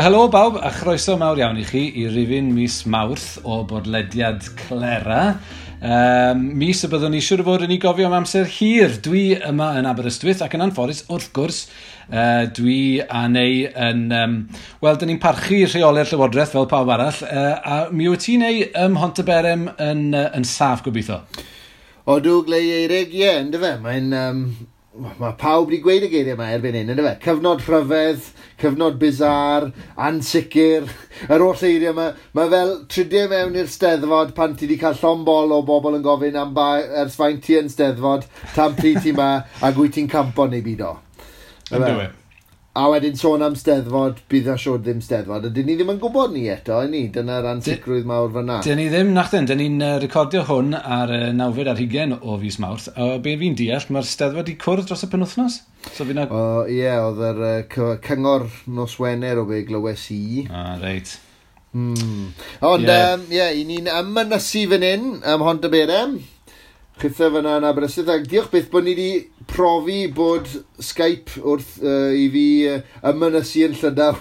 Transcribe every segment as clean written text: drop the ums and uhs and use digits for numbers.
Wel, helo bawb, a chroeso mawr iawn i chi i rifyn mis Mawrth o bodlediad Clera. Mis y byddwn ni siŵr o fod yn ei gofio am amser hir. Dwi yma yn Aberystwyth ac yn anffodus, wrth gwrs, dwi a Neu yn... Wel, dyn ni'n parchu rheolau'r Llywodraeth fel pawb arall, a mi wyt ti, Neu, ym Mhontyberem yn saff gobeithio? Odw, Glei Eirig, ie, yeah, yndyfe. Mae'n... Mae pawb wedi gweud y geiriau yma erbyn hyn, yndyfe? Cyfnod rhyfedd, cyfnod bizar, ansicr, yr holl eiriau yma. Mae fel tridiau mewn i'r Steddfod pan ti wedi cael llond bol o bobl yn gofyn am ba, ers faint ti yn Steddfod, tan pryd ti ma, ac wyt ti'n campo neu byd o. Yndyfe. A wedyn sôn am Steddfod, bydd na siwr ddim Steddfod. A dyn ni ddim yn gwybod ni eto, i ni. Dyna'r ansicrwydd mawr fyna. Dyn ni ddim, nachdyn. Dyn ni'n recordio hwn ar 29 o fis Mawrth. A be fi'n deall, mae'r Steddfod wedi cwrdd dros y penwythnos? So fi na... O, ie, oedd yr cyngor nos Wener o be glywes i. Ah, reit. Ond, ie, yeah, i ni'n ymynysu fan hyn, ym Mhontyberem. Chitha fyna yn Aberystwyth, ac diolch byth bod ni wedi profi bod Skype wrth i fi ymynysu yn Llydaw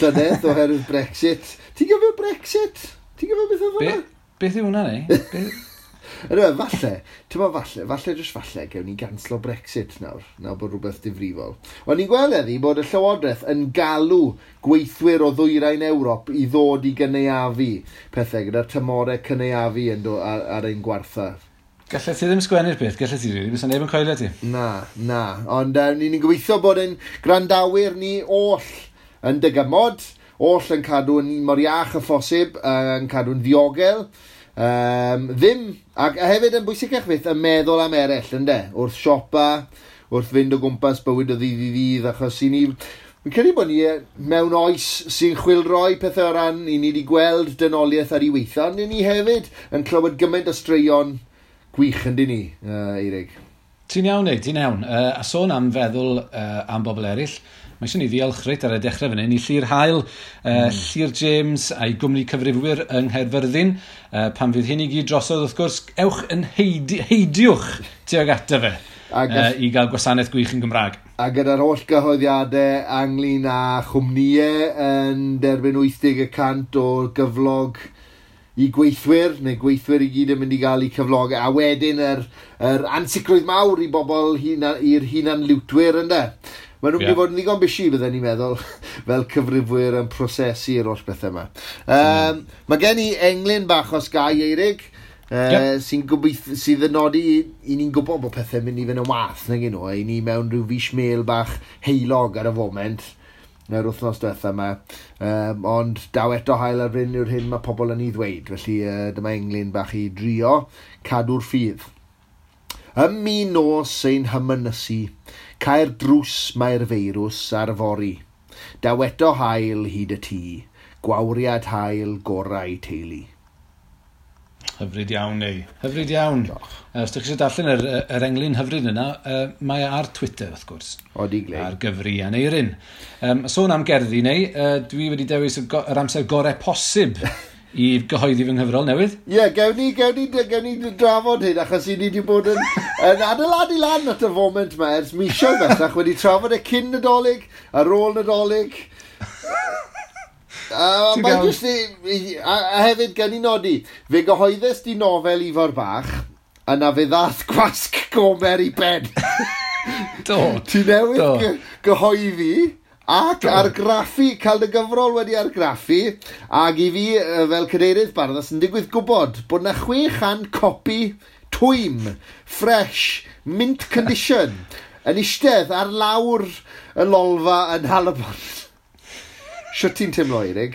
llynedd oherwydd Brexit. Ti'n gofio Brexit? Ti'n gofio beth oedd hwnna? Beth yw hwnna, neu? Yndyfe, falle, ti'n meddwl falle, falle jyst falle, gewn ni ganslo Brexit nawr, nawr bod rhywbeth difrifol. O'n i'n gweld heddi bod y Llywodraeth yn galw gweithwyr o ddwyrain Ewrop i ddod i gynaeafu pethau gyda'r tymorau cynaeafu yn do, ar ein gwartha. Gallet ti ddim sgwennu'r peth, gallet ti rili, bysa neb yn coelio ti. Na, na, ond ni'n gobeithio bod ein gwrandawyr ni oll yn dygymod, oll yn cadw'n mor iach â phosib, yn cadw'n ddiogel. Ddim, ac hefyd yn bwysicach fyth, yn meddwl am eraill, ynde? Wrth siopa, wrth fynd o gwmpas bywyd o ddydd i ddydd, achos i ni... Fi'n credu bod ni mewn oes sy'n chwilroi pethau o ran, i ni wedi gweld dynoliaeth ar ei weitha, ond ni hefyd yn clywed gymaint o straeon gwych yn dyn ni, Eirig. Ti'n iawn, Eirig, ti'n iawn. A sôn am feddwl am bobl eraill, mae eisiau ni ddiolch reit ar y dechrau fan hyn i Llyr Haul, Llyr James a'i gwmni cyfrifwyr yng Nghaerfyrddin. Pan fydd hyn i gyd drosodd, wrth gwrs, ewch yn heidiwch tuag ato fe, i gael gwasanaeth gwych yn Gymraeg. A gyda'r holl gyhoeddiadau ynglyn â chwmnïau yn derbyn 80% o gyflog i gweithwyr, neu gweithwyr i gyd yn mynd i gael eu cyflogau, a wedyn yr ansicrwydd mawr i bobl i'r hunanliwtwyr, ynde? Maen nhw'n mynd i fod yn ddigon busy, bydden ni'n meddwl, fel cyfrifwyr yn prosesu'r holl bethau yma. Mae gen i englyn bach os gai, Eirig, sy'n sydd yn nodi i ni'n gwybod bod pethau'n mynd i fynd yn wath, nag nhw, i ni mewn rhyw fish meal bach heulog ar y foment, yr wythnos diwetha yma, ond daw eto haul ar fryn yw'r hyn mae pobl yn ei ddweud, felly dyma englyn bach i drio cadw'r ffydd. Ym mi nos ein hymynysu, cael drws mae'r feirws ar fory. Daw eto haul hyd y tŷ, gwawriad haul gorau teulu. Hyfryd iawn, neu. Hyfryd iawn. Os ydych chi eisiau darllen yr englyn hyfryd yna, mae ar Twitter, wrth gwrs. Odi, Glei. Ar gyfri Aneirin. Sôn am gerddi, neu, dwi wedi dewis yr amser gorau posib i gyhoeddi fy nghyfrol newydd. Ie, gewn ni drafod hyn, achos i ni wedi bod yn adeiladu lan at y foment yma ers misoedd bellach, wedi trafod e cyn Nadolig, ar ôl Nadolig. Mae jyst a hefyd gen i nodi, fe gyhoeddus di nofel Ifor Bach, a na fe ddath gwasg Gomer i ben. Do. Ti newydd gyhoeddi ac argraffu, cael dy gyfrol wedi argraffu, ac i fi fel cadeirydd Barddas yn digwydd gwybod bod na 600 copi twym, fresh, mint condition, yn eistedd ar lawr y lolfa yn Nhalybont. Shwt ti'n teimlo, Eirig?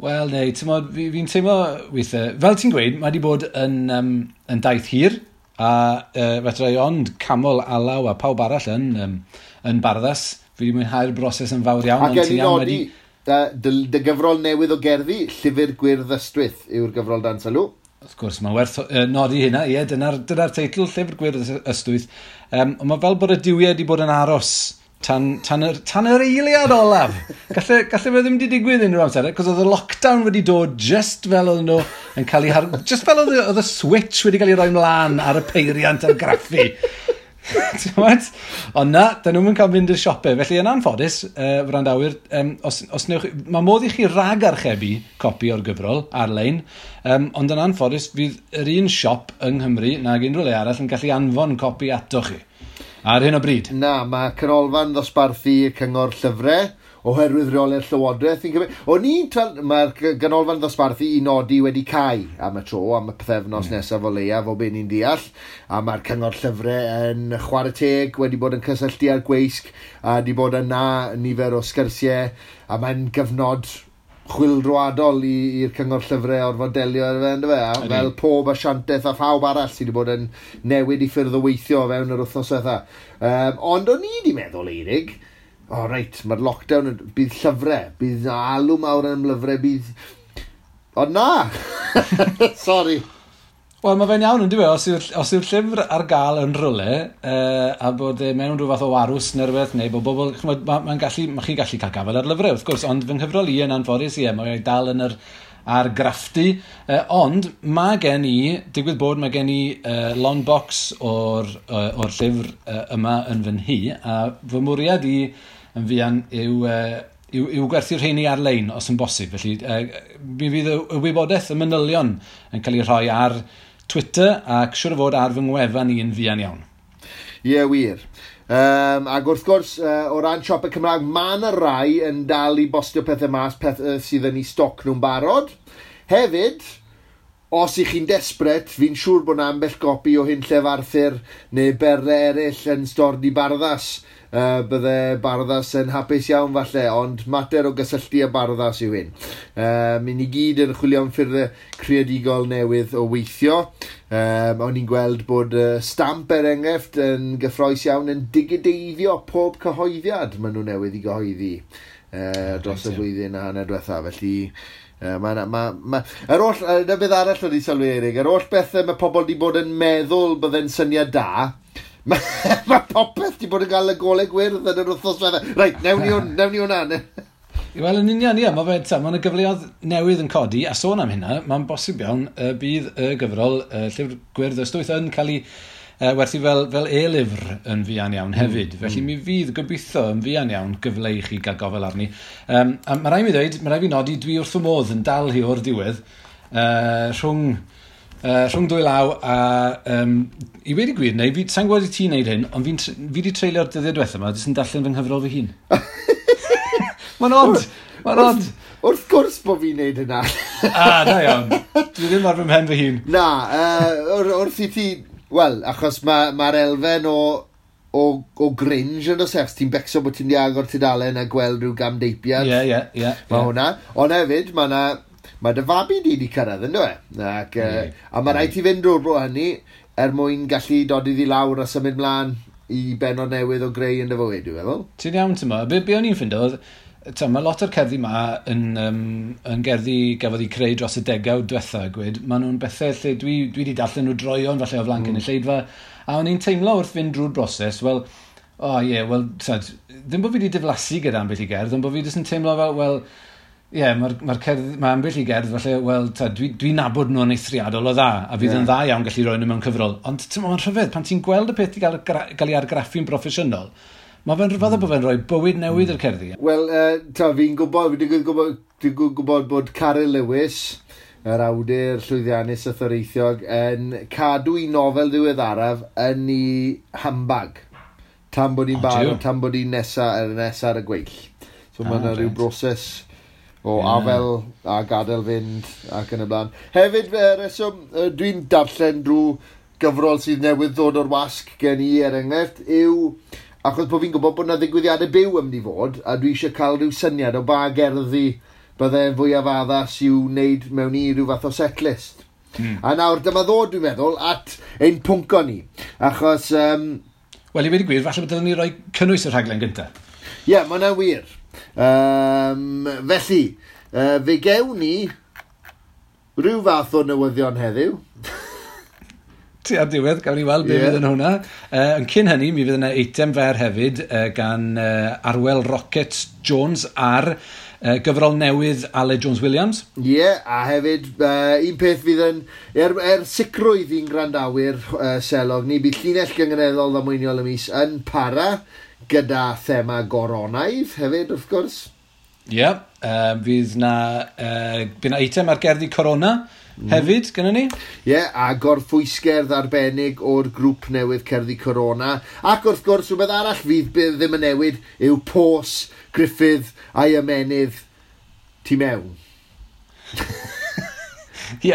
Wel, neu, ti'n fi'n teimlo weithiau, fel ti'n gweud, mae wedi bod yn daith hir, a fedra i ond camol Alaw a pawb arall yn Barddas. Fi wedi mwynhau'r broses yn fawr iawn. Ac gen i nodi, dy gyfrol newydd o gerddi, Llyfr Gwyrdd Ystwyth yw'r gyfrol dan sylw. Wrth gwrs, mae'n werth nodi hynna, ie, dyna'r teitl, Llyfr Gwyrdd Ystwyth. Ond mae fel bod y duwiau wedi bod yn aros tan yr eiliad olaf. Galle fe ddim wedi digwydd unrhyw amser, cos oedd y lockdown wedi dod just fel oedd nhw yn cael ei just fel oedd y switch wedi cael ei roi mlaen ar y peiriant argraffu. Ti'n Ond na, dyn nhw'n cael mynd i'r siopau. Felly yn anffodus, wrandawyr, os newch, mae modd i chi rag-archebu copi o'r gyfrol ar-lein, ond yn anffodus fydd yr un siop yng Nghymru nag unrhyw le arall yn gallu anfon copi ato chi. Ar hyn o bryd. Na, mae canolfan ddosbarthu y Cyngor Llyfrau oherwydd rheolau'r Llywodraeth. Fi'n cymryd. O'n i'n mae'r ganolfan ddosbarthu i nodi wedi cau am y tro, am y pythefnos nesaf o leiaf, o be ni'n deall. A mae'r Cyngor Llyfrau yn chwarae teg wedi bod yn cysylltu â'r gweisg a wedi bod yna nifer o sgyrsiau, a mae'n gyfnod chwyldroadol i'r Cyngor Llyfrau orfod delio ar fe, yndyfe? A fel pob asiantaeth a phawb arall sydd wedi bod yn newid i ffyrdd o weithio fewn yr wythnos diwetha. Ond o'n i wedi meddwl, Eirig, o oh, reit, mae'r lockdown, bydd llyfrau, bydd alw mawr am lyfrau, bydd... Ond na! Sorry. Wel, mae fe'n iawn yn dweud, os yw'r llyfr ar gael yn rhywle, a bod e mewn rhyw fath o warws neu rhywbeth, neu bod bobl, ch'mod, ma chi'n gallu cael gafael ar lyfrau, wrth gwrs, ond fy nghyfrol i yn anffodus, ie, mae'n dal yn yr argraffdy, ond mae gen i, digwydd bod mae gen i long box o'r llyfr yma yn fy nhŷ, a fy mwriad i yn fuan yw gwerthu'r rheini ar-lein os yn bosib. Felly mi fydd y wybodaeth, y manylion yn cael ei rhoi ar Twitter ac siŵr o fod ar fy ngwefan i yn fuan iawn. Ie, wir. Ac wrth gwrs, o ran siopau Cymraeg, mae yna rai yn dal i bostio pethau mas, pethau sydd yn eu stoc nhw'n barod. Hefyd, os ych chi'n desperate, fi'n siŵr bod yna ambell gopi o Hunllef Arthur neu berle eraill yn stordy Barddas. Bydde Barddas yn hapus iawn falle, ond mater o gysylltu â Barddas yw hyn. Mi ni gyd yn chwilio am ffyrddau creadigol newydd o weithio. O'n i'n gweld bod Stamp er enghraifft yn gyffrous iawn yn digideiddio pob cyhoeddiad maen nhw newydd i gyhoeddi dros y flwyddyn a hanner diwetha. Felly yr oll, na beth arall wedi sylwi, Eirig, yr oll bethau mae pobl wedi bod yn meddwl bydde'n syniad da, mae popeth wedi bod yn cael y golau gwyrdd yn yr wythnos diwetha. Reit, newn ni hwnna. Wel, yn union, ie, mae yna gyfleoedd newydd yn codi, a sôn am hynna, mae'n bosib iawn bydd y gyfrol Llyfr Gwyrdd Ystwyth yn cael ei werthu fel e-lyfr yn fuan iawn hefyd. Felly mi fydd gobeithio yn fuan iawn gyfle i chi gael gofel arni. A mae rhaid mi ddweud, mae rhaid fi nodi, dwi wrth fy modd yn dal hi o'r diwedd, rhwng dwy law a i wedi gwir, neu fi, sa'n gwybod i ti'n neud hyn, ond fi wedi treulio'r dyddiau diwethaf yma, jyst yn darllen fy nghyfrol fy hun. Mae'n odd, mae'n odd. Wrth gwrs bod fi'n neud hynna. Ah, da iawn. Dwi ddim ar fy mhen fy hun. Na, wrth i ti... Wel, achos mae'r ma elfen o gringe yn oes, ti'n becso bod ti'n di agor tudalen a gweld rhyw gamdeipiad. Ie, ie, ie. Mae hwnna. Ond hefyd, mae dy fabi di di cyrraedd, ynddo e? Ac, a mae rhaid ti fynd drwy'r bro hynny er mwyn gallu dod iddi lawr a symud mlaen i bennod newydd o greu yn dy fywyd, dwi'n meddwl. Ti'n iawn, ti'n meddwl. Be o'n i'n ffindo oedd, mae lot o'r cerddi ma yn gerddi gafodd eu creu dros y degawd diwetha, gwed. Maen nhw'n bethau lle dwi wedi darllen nhw droeon falle o flaen cynulleidfa, a o'n i'n teimlo wrth fynd drwy'r broses, wel, o oh, ie, yeah, wel, ddim bod fi wedi diflasu gyda ambell i gerdd, ond bod fi jyst yn teimlo fel, wel, ie, yeah, mae ambell i gerdd falle, wel, dwi'n nabod nhw'n eithriadol o dda, a fydd yn dda iawn gallu rhoi nhw mewn cyfrol. Ond mae'n rhyfedd, pan ti'n gweld y peth i gael ei argraffu'n broffesiynol, mae fe'n rhyfedd bod fe'n rhoi bywyd newydd i'r cerddi. Wel, fi'n gwybod, dwi'n gwybod bod Caryl Lewis, yr awdur llwyddiannus a thoreithiog, yn cadw ei nofel ddiweddaraf yn ei handbag. Tan bod hi'n barod, tan bod hi'n nesa ar y gweill. So mae yna rhyw broses o afel a gadael fynd ac yn y blaen. Hefyd, reswm, dwi'n darllen drwy gyfrol sydd newydd ddod o'r wasg gen i, er enghraifft, yw achos bod fi'n gwybod bod yna ddigwyddiadau byw yn mynd i fod, a dwi eisiau cael rhyw syniad o ba gerddi bydde'n fwyaf addas i'w wneud mewn i rhyw fath o setlist. A nawr, dyma ddod, dwi'n meddwl, at ein pwnco ni. Achos... Wel, i wedi gwir, falle bod dylen ni roi cynnwys y rhaglen gyntaf. Ie, yeah, mae hwnna'n wir. Felly, fe gewn ni rhyw fath o newyddion heddiw. Ti ar diwedd, gawn ni weld be fydd yn hwnna. Yn cyn hynny, mi fydd yna eitem fer hefyd gan Arwel Rocket Jones ar Gyfrol newydd Aled Jones Williams. Ie, yeah, a hefyd un peth fydd yn, er sicrwydd i'n gwrandawyr selog ni, bydd llinell gynganeddol ddamweiniol y mis yn para gyda thema goronaidd hefyd, wrth gwrs. Ie, yeah, fydd na, bydd na eitem ar gerddi Corona hefyd, gynnon ni. Ie, yeah, a gorffwysgerdd arbennig o'r grŵp newydd Cerddi Corona. Ac wrth gwrs, rhywbeth arall fydd ddim yn newid yw pos Gruffydd a'i ymenydd tu mewn. Ie,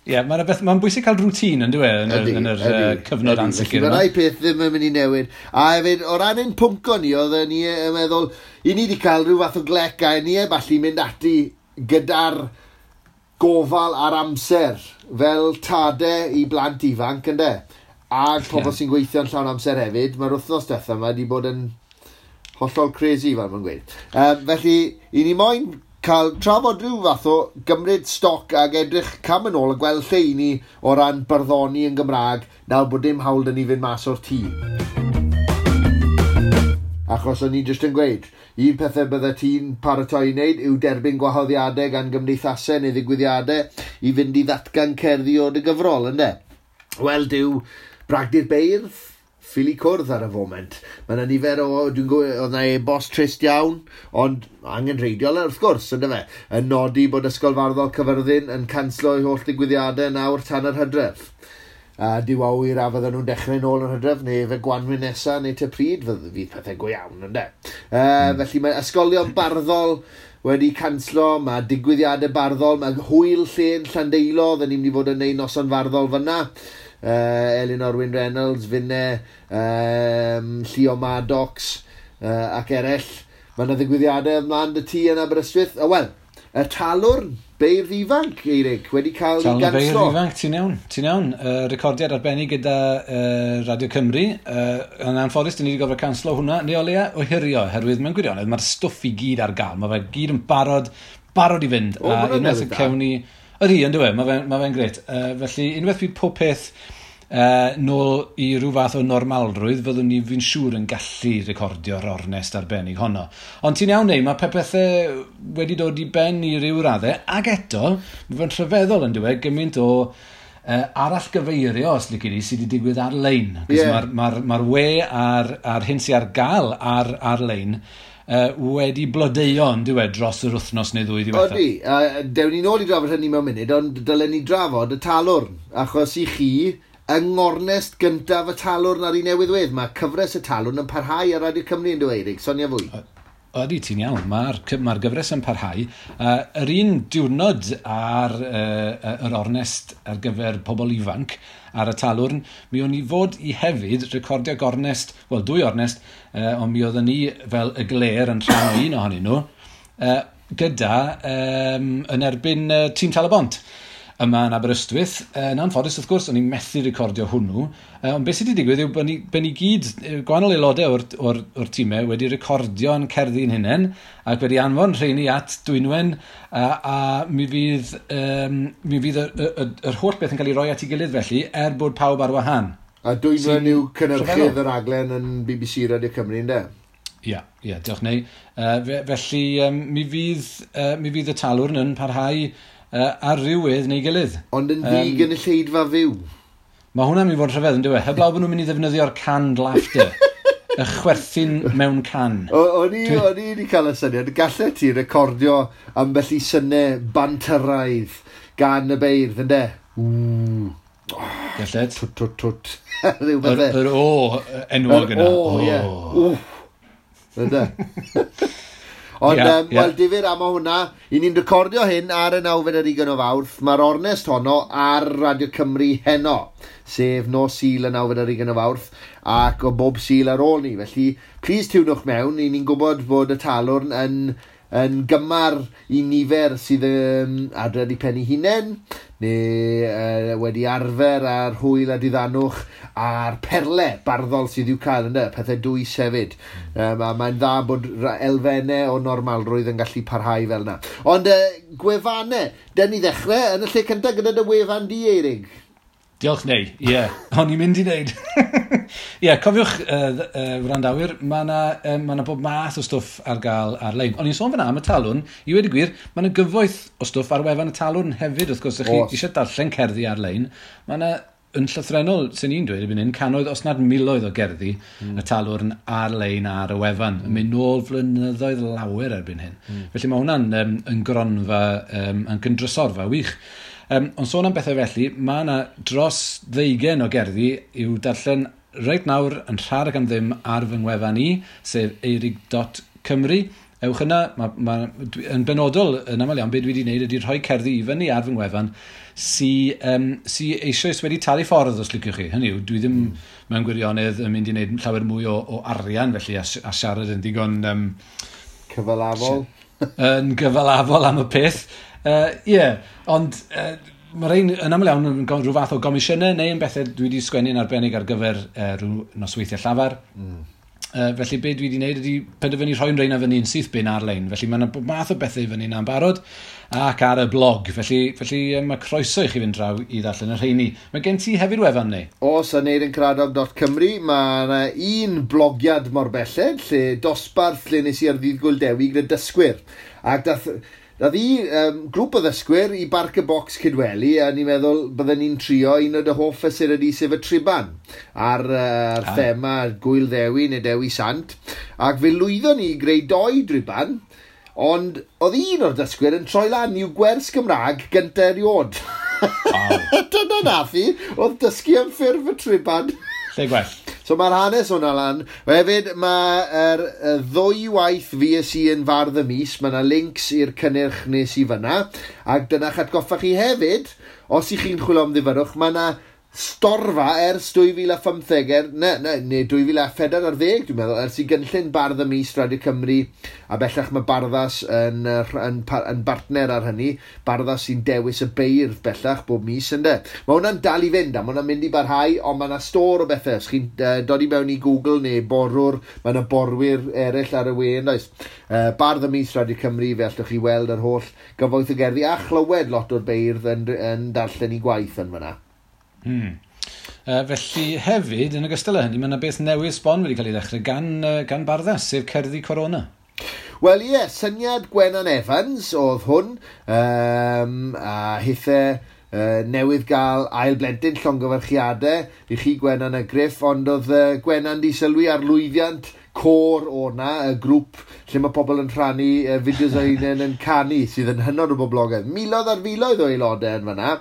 yeah, mae'n bwysig cael rwtîn yn dwi, yn yr cyfnod ansicr. Mae rai peth ddim yn mynd i newid. A hefyd, o ran ein pwnco ni, oedden ni yn meddwl, i ni wedi cael rhyw fath o glec a ni heb allu mynd ati gyda'r gofal a'r amser fel tade i blant ifanc, ynde? A pobl sy'n gweithio'n llawn amser hefyd, mae'r wythnos diwetha yma wedi bod yn hollol crazy, fel mae'n gweud. Felly, i ni moyn cael trafod rhyw fath o gymryd stoc ag edrych cam yn ôl a gweld lle i ni o ran barddoni yn Gymraeg nawr bod dim hawl 'da ni fynd mas o'r tŷ. Achos o'n i jyst yn gweud, un pethau bydde ti'n paratoi i wneud yw derbyn gwahoddiadau gan gymdeithasau neu ddigwyddiadau i fynd i ddatgan cerddi o dy gyfrol, ynde? Wel, dyw Bragdy'r Beirdd ffili cwrdd ar y foment. Mae yna nifer o, dwi'n gwybod, oedd yna e-bost trist iawn, ond angenrheidiol wrth gwrs, ynde fe, yn nodi bod Ysgol Farddol Cyfyrddin yn canslo ei holl digwyddiadau nawr tan yr hydref. A dyw awyr a fydden nhw'n dechrau nôl yn hydref, neu fe gwanwyn nesa, neu te pryd, fydd pethau go iawn, ynde. Felly mae ysgolion barddol wedi canslo, mae digwyddiadau barddol, mae hwyl llên Llandeilo, oedden ni'n mynd i fod yn neud noson farddol fyna. Elinor Wyn Reynolds, Finne, Llio Maddox ac eraill. Mae yna ddigwyddiadau ymlaen dy tŷ yn Aberystwyth. O wel, y Talwrn, Beirdd Ifanc, Eirig, wedi cael ei ganslo. Beirdd Ifanc, ti'n iawn, ti'n iawn. Recordiad arbennig gyda Radio Cymru. Yn anffodus, dyn ni wedi gorfod canslo hwnna, neu o leia ohirio, oherwydd mewn gwirionedd, mae'r stwff i gyd ar gael. Mae fe gyd yn barod i fynd. O, a unwaith y cewn ni... Ydy, yn dyw e, mae fe'n grêt. Felly, unwaith bydd pob peth nôl i ryw fath o normalrwydd, fyddwn ni fi'n siŵr yn gallu recordio'r ornest arbennig honno. Ond ti'n iawn neu, mae pethau wedi dod i ben i ryw raddau, ac eto, mae fe'n rhyfeddol yn dyw e, gymaint o arallgyfeirio, os lici di, sydd wedi digwydd ar-lein. Yeah. Mae'r we a'r hyn sydd ar gael ar-lein wedi blodeuo yn dyw e dros yr wythnos neu ddwy ddiwethaf. Odi, dewn ni nôl i drafod hynny mewn munud, ond dylen ni drafod y Talwrn, achos i chi, yng ngornest gyntaf y Talwrn ar ei newydd wedd, mae cyfres y Talwrn yn parhau ar Radio Cymru yn dweud, Eirig, sonia fwy. Ydy, ti'n iawn, mae'r gyfres yn parhau. Yr un diwrnod ar yr ornest ar gyfer pobl ifanc ar y Talwrn, mi o'n i fod i hefyd recordio gornest, wel dwy ornest, ond mi oedden ni fel y gler yn rhan o un ohonyn nhw, gyda yn erbyn tîm Tal-y-bont yma yn Aberystwyth. Yn anffodus, wrth gwrs, o'n i'n methu recordio hwnnw. Ond beth sydd wedi digwydd yw bod ni gyd, gwahanol aelodau o'r tîmau, wedi recordio'n cerddi'n hunain ac wedi anfon rheini at Dwynwen, a mi fydd yr holl beth yn cael ei roi at ei gilydd felly, er bod pawb ar wahân. A Dwynwen yw cynhyrchydd yr raglen yn BBC Radio Cymru, ynde? Ie, diolch neu. Felly, mi fydd y Talwrn yn parhau ar rywedd neu gilydd. Ond yn ddi gynulleidfa fyw. Mae hwnna'n mynd i fod yn rhyfedd, yn dyw e? Heblaw bod nhw'n mynd i ddefnyddio'r canned laughter. Y chwerthin mewn can. O'n i wedi cael y syniad. Gallet ti recordio ambell i synnau bantyraidd gan y beirdd, ynde? Ww. Gallet. Twt, twt, twt. Rhyw beth. Yr o enwog yna. Yr o, ie. Wff. Ynde? Ond, wel, difyr am o hwnna. I ni'n recordio hyn ar y 29 o Fawrth. Mae'r ornest honno ar Radio Cymru heno, sef nos Sul y 29 o Fawrth, ac o bob Sul ar ôl ni. Felly, please tiwnwch mewn. I ni'n gwybod bod y Talwrn yn gymar i nifer sydd adre 'di pen eu hunain, neu wedi arfer ar hwyl a diddanwch a'r perle barddol sydd i'w cael, ynde, pethau dwys hefyd. A mae'n dda bod elfennau o normalrwydd yn gallu parhau fel yna. Ond gwefannau, den ni ddechrau yn y lle cyntaf gyda dy wefan di, Eirig. Diolch neu, ie. Yeah. O'n i'n mynd i wneud. Ie, yeah, cofiwch, wrandawyr, mae yna ma bob math o stwff ar gael ar-lein. O'n i'n sôn fyna am y Talwrn, i wedi gwir, mae yna gyfoeth o stwff ar wefan y Talwrn hefyd, wrth gwrs, ych chi eisiau darllen cerddi ar-lein. Mae yna yn llythrennol, sy'n ni'n dweud, erbyn hyn, cannoedd, os nad miloedd o gerddi y Talwrn ar-lein ar y wefan. Yn mynd nôl flynyddoedd lawer erbyn hyn. Felly mae hwnna'n yn gronfa, yn gyndrysorfa wych. Ond sôn am bethau felly, mae yna dros 20 o gerddi i'w darllen reit nawr yn rhad ac am ddim ar fy ngwefan i, sef eurig.cymru. Ewch yna, yn benodol, yn aml iawn, beth dwi wedi gwneud ydy rhoi cerddi i fyny ar fy ngwefan sy eisoes wedi talu ffordd, os liciwch chi. Hynny yw, dwi ddim mewn gwirionedd yn mynd i wneud llawer mwy o arian felly a siarad yn ddigon... cyfalafol. Yn gyfalafol am y peth. Ond mae rhain yn aml iawn yn rhyw fath o gomisiynau neu yn bethau dwi wedi sgwennu'n arbennig ar gyfer rhyw nosweithiau llafar. Felly be dwi wedi wneud ydy penderfynu rhoi'n rhain fyny yn syth bin ar-lein. Felly mae yna bob math o bethau i fyny yna'n barod ac ar y blog. Felly mae croeso i chi fynd draw i ddarllen y rheini. Mae gen ti hefyd wefan neu? Oes, aneurincaradog.cymru. Mae yna un blogiad mor belled, lle dosbarth lle nes i ar ddydd Gŵyl Dewi gyda dysgwyr. Ac dath i grŵp o ddysgwyr i Barc y Bocs Cydweli, a ni'n meddwl bydden ni'n trio un o dy hoff fesurau di, sef y triban, ar thema Gŵyl Ddewi neu Dewi Sant. Ac fe lwyddon ni i greu 2 driban, ond oedd un o'r dysgwyr yn troi lan i'w gwers Gymraeg gyntaf erioed. Wow. Dyna nath hi, oedd dysgu am ffurf y triban. Lle gwell. So mae'r hanes hwnna lan. Hefyd, mae'r ddwy waith fues i yn fardd y mis, mae yna links i'r cynnyrch nes i fyna, ac dyna'ch atgoffa chi hefyd, os ych chi'n chwilio am ddifyrrwch, mae yna storfa ers 2015, neu 2014, dwi'n meddwl, ers i gynllun Bardd y Mis Radio Cymru, a bellach mae Barddas yn bartner ar hynny, Barddas sy'n dewis y beirdd bellach bob mis, ynde. Mae hwnna'n dal i fynd, a mae hwnna'n mynd i barhau, ond mae yna stôr o bethau. Os chi'n dod i mewn i Google neu borwr, mae yna borwyr eraill ar y we, yn does? Bardd y Mis Radio Cymru, fe allwch chi weld yr holl gyfoeth o gerddi, a chlywed lot o'r beirdd yn darllen i gwaith yn fyna. Felly hefyd, yn ogystal â hynny, mae yna beth newydd sbon wedi cael ei ddechrau gan Barddas, sef Cerddi Corona. Wel ie, syniad Gwenan Evans oedd hwn, a hithe newydd gael ail blentyn, llongyfarchiadau i chi Gwenan a Griff, ond oedd Gwenan di sylwi ar lwyddiant côr o'na, y grŵp lle mae pobl yn rhannu fideos o hunain yn canu, sydd yn hynod o boblogaidd. Miloedd ar filoedd o aelodau yn fan'na.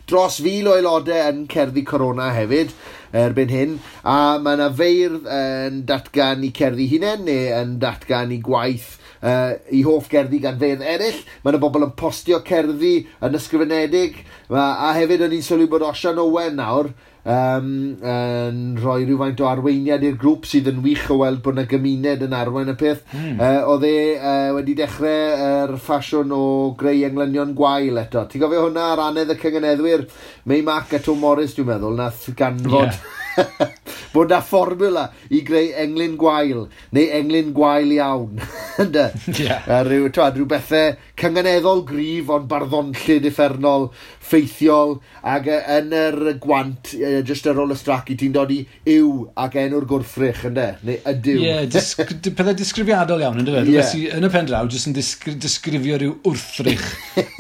Dros 1,000 o aelodau yn Cerddi Corona hefyd erbyn hyn, a mae yna feirdd yn datgan i cerddi hunain neu yn datgan i gwaith i hoff gerddi gan feirdd eraill. Mae yna bobl yn postio cerddi yn ysgrifenedig, a hefyd o'n i'n sylwi bod Osian Owen nawr yn rhoi rhywfaint o arweiniad i'r grŵp, sydd yn wych o weld bod yna gymuned yn arwain y peth. Oedd e wedi dechrau yr ffasiwn o greu englynion gwael eto. Ti'n gofio hwnna ar anedd y cynganeddwyr? Mei Mac a Tom Morris, dwi'n meddwl, nath ganfod bod na fformula i greu englyn gwael, neu englyn gwael iawn. Ynde? Rhyw bethau cynganeddol gryf, ond barddonllyd uffernol, ffeithiol, ac yn yr gwant, jyst ar ôl y strac, ti'n dod i yw ac enw'r gwrthrych, ynde? Neu ydyw. Ie, pethau disgrifiadol iawn, ynde fe? Rhywbeth sydd yn y pen draw, jyst yn disgrifio rhyw wrthrych,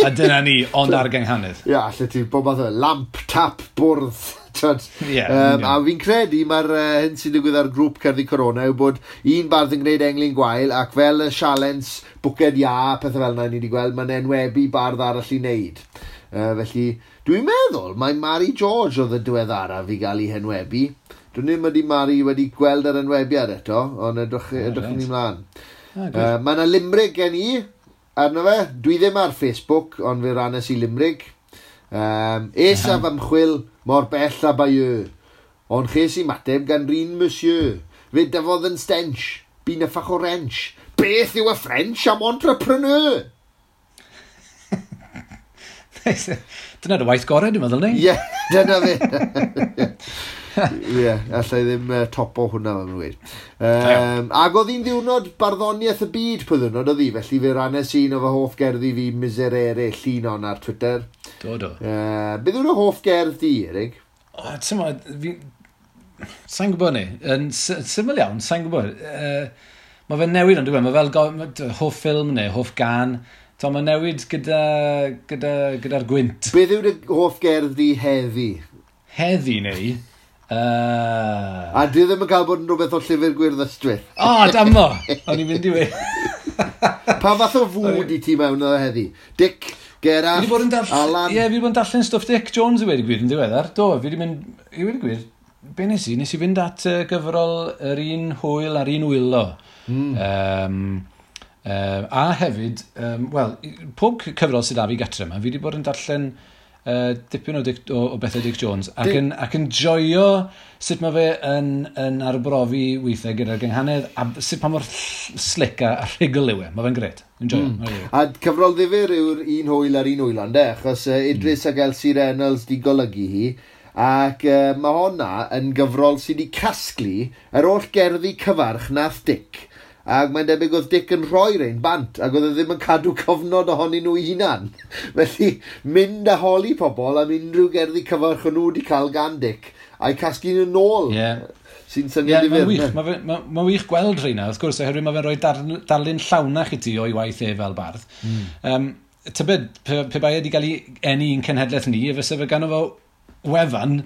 a dyna ni, ond ar gynghanedd. Ie, allet ti, bob math o lamp, tap, bwrdd. A fi'n credu mae'r hyn sy'n digwydd ar grŵp Cerddi Corona yw bod un bardd yn gwneud englyn gwael, ac fel y sialens bwced iâ, pethau fel yna ni wedi gweld, mae'n enwebu bardd arall i wneud. Felly, dwi'n meddwl mae Mari George oedd y diweddaraf i gael ei henwebu. Dwi'n ddim ydy Mari wedi gweld yr enwebiad eto, ond edrych ni mlaen. Mae yna limrig gen i arno fe. Dwi ddim ar Facebook, ond fe rannes i limrig. Es af ymchwil mor bell a Bayeux, ond ches i mateb gan rin monsieur. Fe dyfodd yn stench, bu'n yffach o wrench. Beth yw y French am entrepreneur? Dyna dy waith gorau, dwi'n meddwl, neu? Ie, dyna fe. Ie, allai ddim topo hwnna, fel maen nhw'n gweud. Ac oedd hi'n ddiwrnod barddoniaeth y byd pwy ddiwrnod oedd hi, felly fe rannes un o fy hoff gerddi fi, Miserere, llun on ar Twitter. Do, do. Beth yw'r hoff gerdd di, Erik? O, ti'n mo, fi... Sa'n gwybod ni. Yn syml iawn, sa'n gwybod. Mae fe'n newid ond dwi'n Mae fel hoff ffilm neu hoff gan. To, mae'n newid gyda'r gyda, gyda gwynt. Beth yw'r hoff gerdd di heddi? Heddi neu? A dwi ddim yn cael bod yn rhywbeth o Llyfr Gwyrdd Ystwyth. O, oh, damo! O'n i'n mynd i we. Pa fath o fwyd i ti mewn o heddi? Dic, Gerallt, Alan? Ie, yeah, fi wedi bod yn darllen stwff Dic Jones i wedi gwir yn ddiweddar. Do, fi wedi mynd, i wedi gwir, be nes i? Nes i fynd at gyfrol Yr Un Hwyl a'r Un Wylo. A hefyd, wel, pob cyfrol sydd â fi gatre yma, fi wedi bod yn darllen dipyn o, Dic, o bethau Dic Jones ac, yn, ac yn joio sut mae fe yn arbrofi weithiau gyda'r gynghanedd a sut pa mor slick a rhugl yw e. Mae fe'n gret. Enjoyo. Mm. A cyfrol ddifyr yw'r Un Hwyl a'r Un Wylo, ynde? Achos Idris ac Elsie Reynolds di golygu hi. Ac mae honna yn gyfrol sydd wedi casglu yr holl gerddi cyfarch nath Dic. Ac mae'n debyg oedd Dic yn rhoi rein bant, ac oedd e ddim yn cadw cofnod ohonyn nhw eu hunan. Felly, mynd a holi pobl am unrhyw gerddi cyfarch o'n nhw wedi cael gan Dic, a'i casglu nhw nôl. Sy'n syniad yeah, ddifyr. Mae'n ma, ma wych gweld rheina, wrth gwrs, oherwydd mae fe'n rhoi darlun llawnach i ti o'i waith e fel bardd. Tybed, pe bai e wedi cael ei eni i'n cenhedlaeth ni, fysa fe ganddo fo wefan,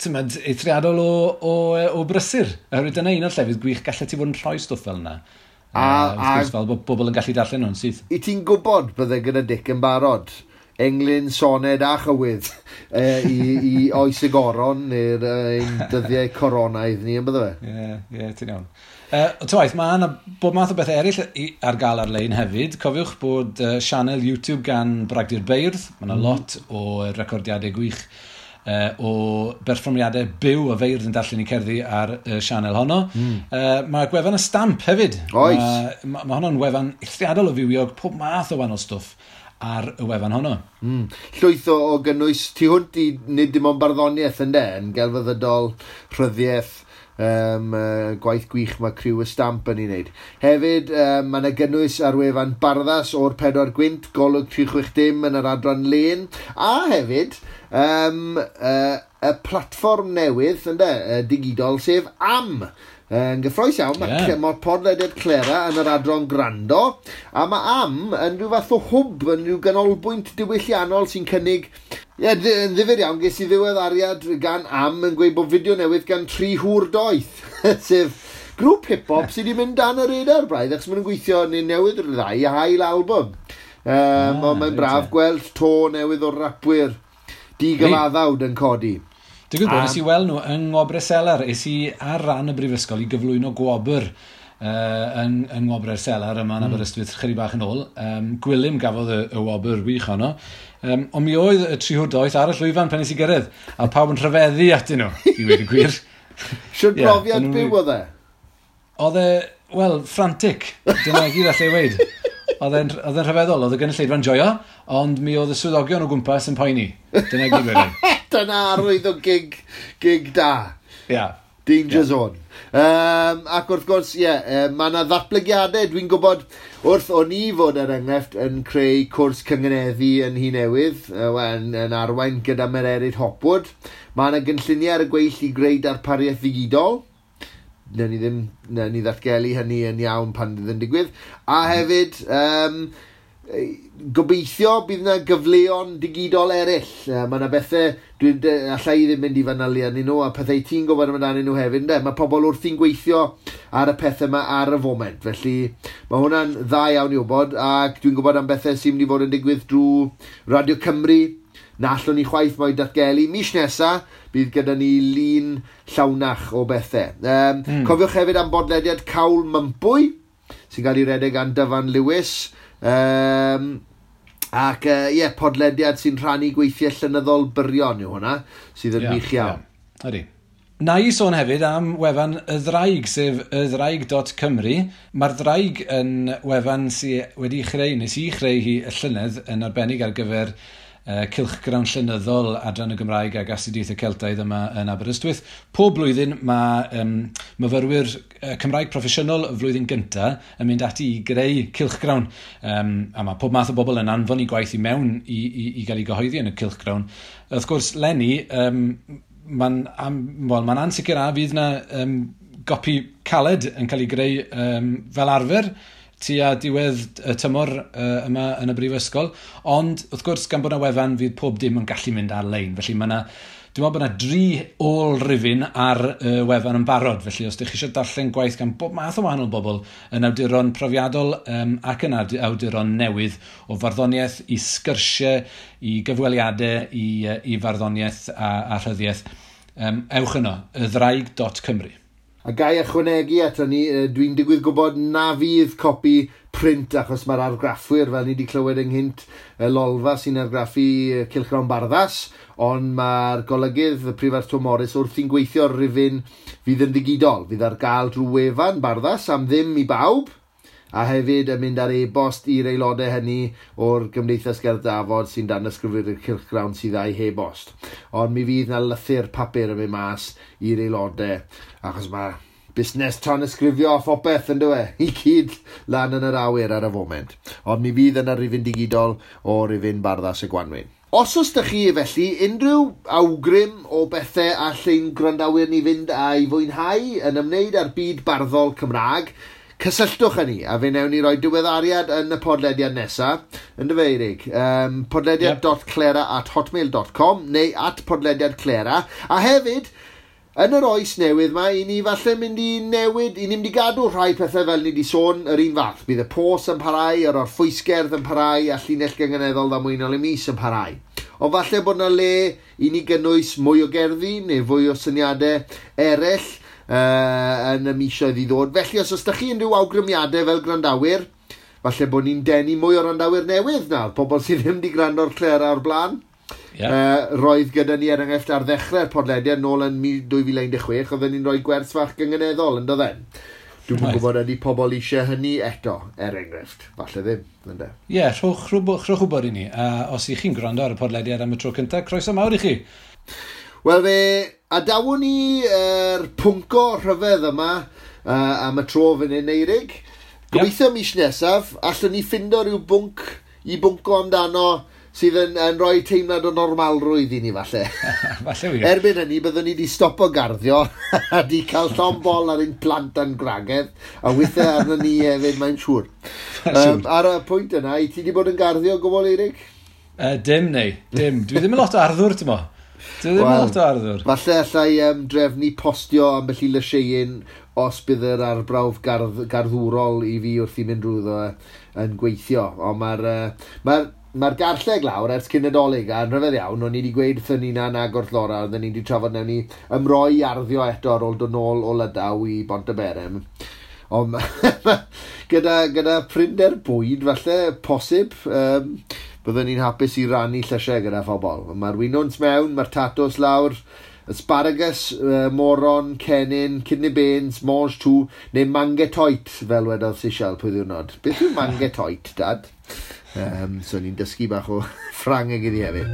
tymod, eithriadol o brysur. Oherwydd dyna un o'r llefydd gwych gallet ti fod yn rhoi stwff fel yna. A wrth gwrs, fel bod bobl yn gallu darllen nhw'n syth. I ti'n gwybod bydde gyda Dic yn barod englyn, soned a chywydd i oes y goron neu'r ein dyddiau coronaidd ni, yn bydde fe? Ie, yeah, ti'n iawn. Twaith, mae yna bob math o bethau eraill ar gael ar-lein hefyd. Cofiwch bod sianel YouTube gan Bragdy'r Beirdd. Mae yna lot o recordiadau gwych o berfformiadau byw o feirdd yn darllen i cerddi ar y sianel honno. Mae gwefan y Stamp hefyd. Oes. Mae honno'n wefan eithriadol o fywiog, pob math o wahanol stwff ar y wefan honno. Llwyth o gynnwys tu hwnt i nid dim ond barddoniaeth ynde, yn gelfyddydol, rhyddiaeth, gwaith gwych mae criw y Stamp yn ei wneud. Hefyd, mae yna gynnwys ar wefan Barddas o'r Pedwar Gwynt, Golwg 360 yn yr adran lên, a hefyd y platfform newydd ynde, digidol, sef Am. Yn gyffrous iawn, mae yeah. Podlediad Clera yn yr adran Grando, a mae Am yn rhyw fath o hwb, yn rhyw ganolbwynt diwylliannol sy'n cynnig... Ie, yeah, yn ddifyr iawn, ges i ddiweddariad gan Am yn gweud bod fideo newydd gan Tri Hŵr Doeth, sef grŵp hip-hop sydd wedi mynd dan y radar braidd, achos maen nhw'n gweithio neu newydd ryddhau ail album. Ond mae'n braf gweld to newydd o rapwyr digyfaddawd yn codi. Digwydd bod, nes i weld nhw yng Ngwobrau Selar. Es i ar ran y brifysgol i gyflwyno gwobr yn Ngwobrau'r Selar yma yn Aberystwyth chydig bach yn ôl. Gwilym gafodd y wobr wych honno. Ond mi oedd y Tri Hŵr Doeth ar y llwyfan pan nes i gyrraedd, a pawb yn rhyfeddu atyn nhw, i weud y gwir. Siwr brofiad byw oedd e? Oedd e, wel, frantic. Dyna gyd allai weud. Oedd e'n rhyfeddol, oedd y gynulleidfa'n joio, ond mi oedd y swyddogion o gwmpas yn poeni. Dyna gyd wedyn. Dyna arwydd o gig da. Yeah. Danger zone. Ac wrth gwrs, ie, yeah, mae yna ddatblygiadau. Dwi'n gwybod wrth o'n i fod er enghraifft yn creu cwrs cyngeneddu yn Nhŷ Newydd, yn arwain gyda Mererid Hopwood. Mae yna gynlluniau ar y gweill i greu darpariaeth ddigidol. Newn ni ddim, newn ni ddatgelu hynny yn iawn pan fydd yn digwydd. A hefyd, gobeithio bydd yna gyfleon digidol eraill. Mae yna bethau, allai i ddim mynd i fanylu arnyn nhw, a pethau ti'n gwybod amdanyn nhw hefyd, ynde? Mae pobl wrthi'n gweithio ar y pethau yma ar y foment, felly mae hwnna'n dda iawn i wybod, ac dwi'n gwybod am bethau sy'n mynd i fod yn digwydd drwy Radio Cymru, na allwn ni chwaith mo'i datgelu. Mis nesa, bydd gyda ni lun llawnach o bethau. Cofiwch hefyd am bodlediad Cawl Mympwy, sy'n cael ei redeg gan Dyfan Lewis. Ac ie, podlediad sy'n rhannu gweithiau llenyddol byrion yw hwnna, sydd yn wych iawn. Yeah. Ydy. Na i sôn hefyd am wefan Y Ddraig, sef ydraig.cymru. Mae'r Ddraig yn wefan sydd wedi chreu, nes i chreu hi y llynedd yn arbennig ar gyfer Cylchgrawn Llenyddol Adran y Gymraeg ac Astudiaethau Celtaidd yma yn Aberystwyth. Pob blwyddyn mae myfyrwyr Cymraeg proffesiynol y flwyddyn gyntaf yn mynd ati i greu cylchgrawn. A mae pob math o bobl yn anfon i gwaith i mewn i gael ei gyhoeddi yn y cylchgrawn. Wrth gwrs, leni, mae'n well, ma ansicr a fydd na gopi caled yn cael ei greu fel arfer tua diwedd y tymor yma yn y brifysgol. Ond, wrth gwrs, gan bod yna wefan, fydd pob dim yn gallu mynd ar-lein. Felly mae yna, dwi'n meddwl bod yna dri ôl-rifyn ar y wefan yn barod. Felly, os ydych chi eisiau darllen gwaith gan bob math o wahanol bobl yn awduron profiadol ac yn awduron newydd o farddoniaeth i sgyrsiau, i gyfweliadau, i farddoniaeth a rhyddiaeth, ewch yno, ydraig.cymru. A gai ychwanegu ato ni, dwi'n digwydd gwybod na fydd copi print achos mae'r argraffwyr, fel ni wedi clywed ynghynt, y Lolfa sy'n argraffu Cylchgrawn Barddas, ond mae'r golygydd, y Prifardd Twm Morys, wrthi'n gweithio ar rifyn fydd yn ddigidol, fydd ar gael drwy wefan Barddas am ddim i bawb, a hefyd yn mynd ar e-bost i'r aelodau hynny o'r Gymdeithas Gerdd Dafod sy'n danysgrifio'r cylchgrawn sydd â'i e-bost. Ond mi fydd na lythyr papur yn mynd mas i'r aelodau, achos mae busnes tanysgrifio a phopeth yn dywe, i gyd lan yn yr awyr ar y foment. Ond mi fydd yna rifyn digidol o rifyn Barddas y Gwanwyn. Os oes 'da chi felly unrhyw awgrym o bethau all ein gwrandawyr ni fynd a'i fwynhau yn ymwneud â'r byd barddol Cymraeg, cysylltwch â ni, a fe wnewn ni roi diweddariad yn y podlediad nesaf, yn dy Eirig, podlediad.clera@hotmail.com neu @podlediadclera, a hefyd, yn yr oes newydd ma, i ni falle mynd i newid, i ni mynd i gadw rhai pethau fel ni wedi sôn yr un fath. Bydd y pos yn parhau, yr orffwysgerdd yn parhau, a llinell gynganeddol ddamweiniol y mis yn parhau. Ond falle bod yna le i ni gynnwys mwy o gerddi neu fwy o syniadau eraill yn y misoedd i ddod. Felly, os oes da chi unrhyw awgrymiadau fel gwrandawyr, falle bod ni'n denu mwy o wrandawyr newydd nawr, pobl sydd ddim wedi gwrando ar Clera o'r blaen. Yeah. Roedd gyda ni er enghraifft ar ddechrau'r podlediad nôl yn 2016, oedden ni'n rhoi gwers fach gynganeddol, yn doedden? Dwi'm yn gwybod ydy pobl eisiau hynny eto, er enghraifft. Falle ddim, ynde? Ie, yeah, rhowch wybod i ni. Os ych chi'n gwrando ar y podlediad am y tro cyntaf, croeso mawr i chi. Wel fe adawon ni yr pwnco rhyfedd yma am y tro fan hyn, Eirig. Gobeithio mis nesaf, allwn ni ffindo rhyw bwnc i bwnco amdano sydd yn rhoi teimlad o normalrwydd i ni falle. Falle wir. Erbyn hynny, byddwn ni wedi stopo garddio a di cael llond bol ar ein plant a'n gwragedd, a weithiau arno ni hefyd, mae'n siŵr. Ar y pwynt yna, i ti wedi bod yn garddio gwbl, Eirig? Dim neu, dim. Dwi ddim yn lot o arddwr, ti'n mo? Dwi ddim yn lot o arddwr. Falle allai drefnu postio ambell i lysieuyn os bydd yr arbrawf garddwrol i fi wrth i mynd drwyddo yn gweithio. Ond mae'r garlleg lawr ers cyn Nadolig, a yn rhyfedd iawn, o'n i wedi gweud wrthyn ni na nag wrth Laura, oedden ni wedi trafod newn ni ymroi arddio eto ar ôl dod nôl o Lydaw i Bontyberem. Ond gyda prinder bwyd, falle, posib, byddwn ni'n hapus i rannu llysiau gyda phobl. Mae'r winwns mewn, mae'r tatws lawr, asparagus, moron, cennin, kidney beans, mange tout, neu mangetoit, fel wedodd Sisial pwy ddiwrnod. Beth yw mangetoit, Dad? So ni'n dysgu bach o Ffrangeg iddi hefyd.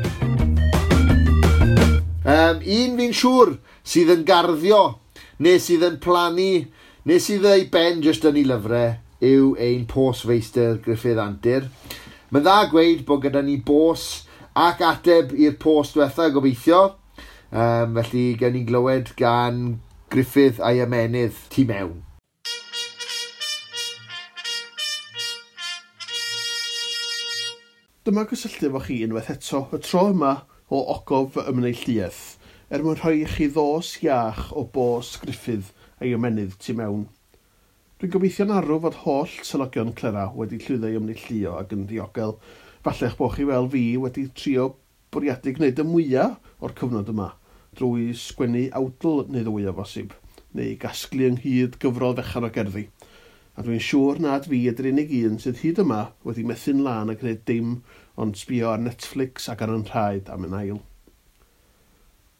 Un fi'n siŵr sydd yn garddio, neu sydd yn plannu, neu sydd ei ben jyst yn ei lyfrau, yw ein postfeistr Gruffydd Antur. Mae'n dda gweud bod gyda ni bos ac ateb i'r post diwetha gobeithio. Felly gawn ni glywed gan Gruffydd a'i ymennydd tu mewn. Dyma gysylltu efo chi unwaith eto, y tro yma o ogof fy ymneilltuaeth, er mwyn rhoi i chi ddos iach o bos Gruffydd a'i ymennydd tu mewn. Dwi'n gobeithio'n arw fod holl selogion Clera wedi llwyddo i ymneilltuo ac yn ddiogel. Falle eich bod chi fel fi wedi trio bwriadu gwneud y mwyaf o'r cyfnod yma, drwy sgwennu awdl neu ddwy o bosib, neu gasglu ynghyd gyfrol fechan o gerddi. A dwi'n siŵr nad fi ydy'r unig un sydd hyd yma wedi methu'n lân a gwneud dim ond sbio ar Netflix ac ar yn rhaid am yn ail.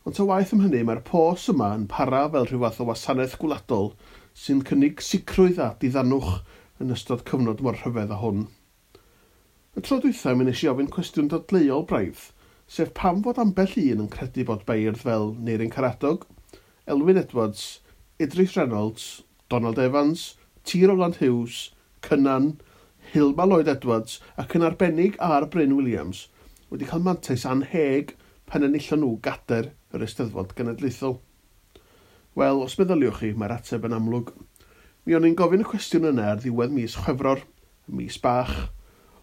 Ond ta waeth am hynny, mae'r pos yma yn para fel rhyw fath o wasanaeth gwladol sy'n cynnig sicrwydd a diddanwch yn ystod cyfnod mor rhyfedd â hwn. Y tro dwytha mi wnes i ofyn cwestiwn dadleuol braidd, sef pam fod ambell un yn credu bod beirdd fel Neirin Caradog, Elwyn Edwards, Idris Reynolds, Donald Evans, T. Rowland Hughes, Cynan, Hilma Lloyd Edwards ac yn arbennig ar Bryn Williams wedi cael mantais anheg pan enillon nhw gader yr Eisteddfod Genedlaethol. Wel, os meddyliwch chi, mae'r ateb yn amlwg. Mi o'n i'n gofyn y cwestiwn yna ar ddiwedd mis Chwefror, mis bach,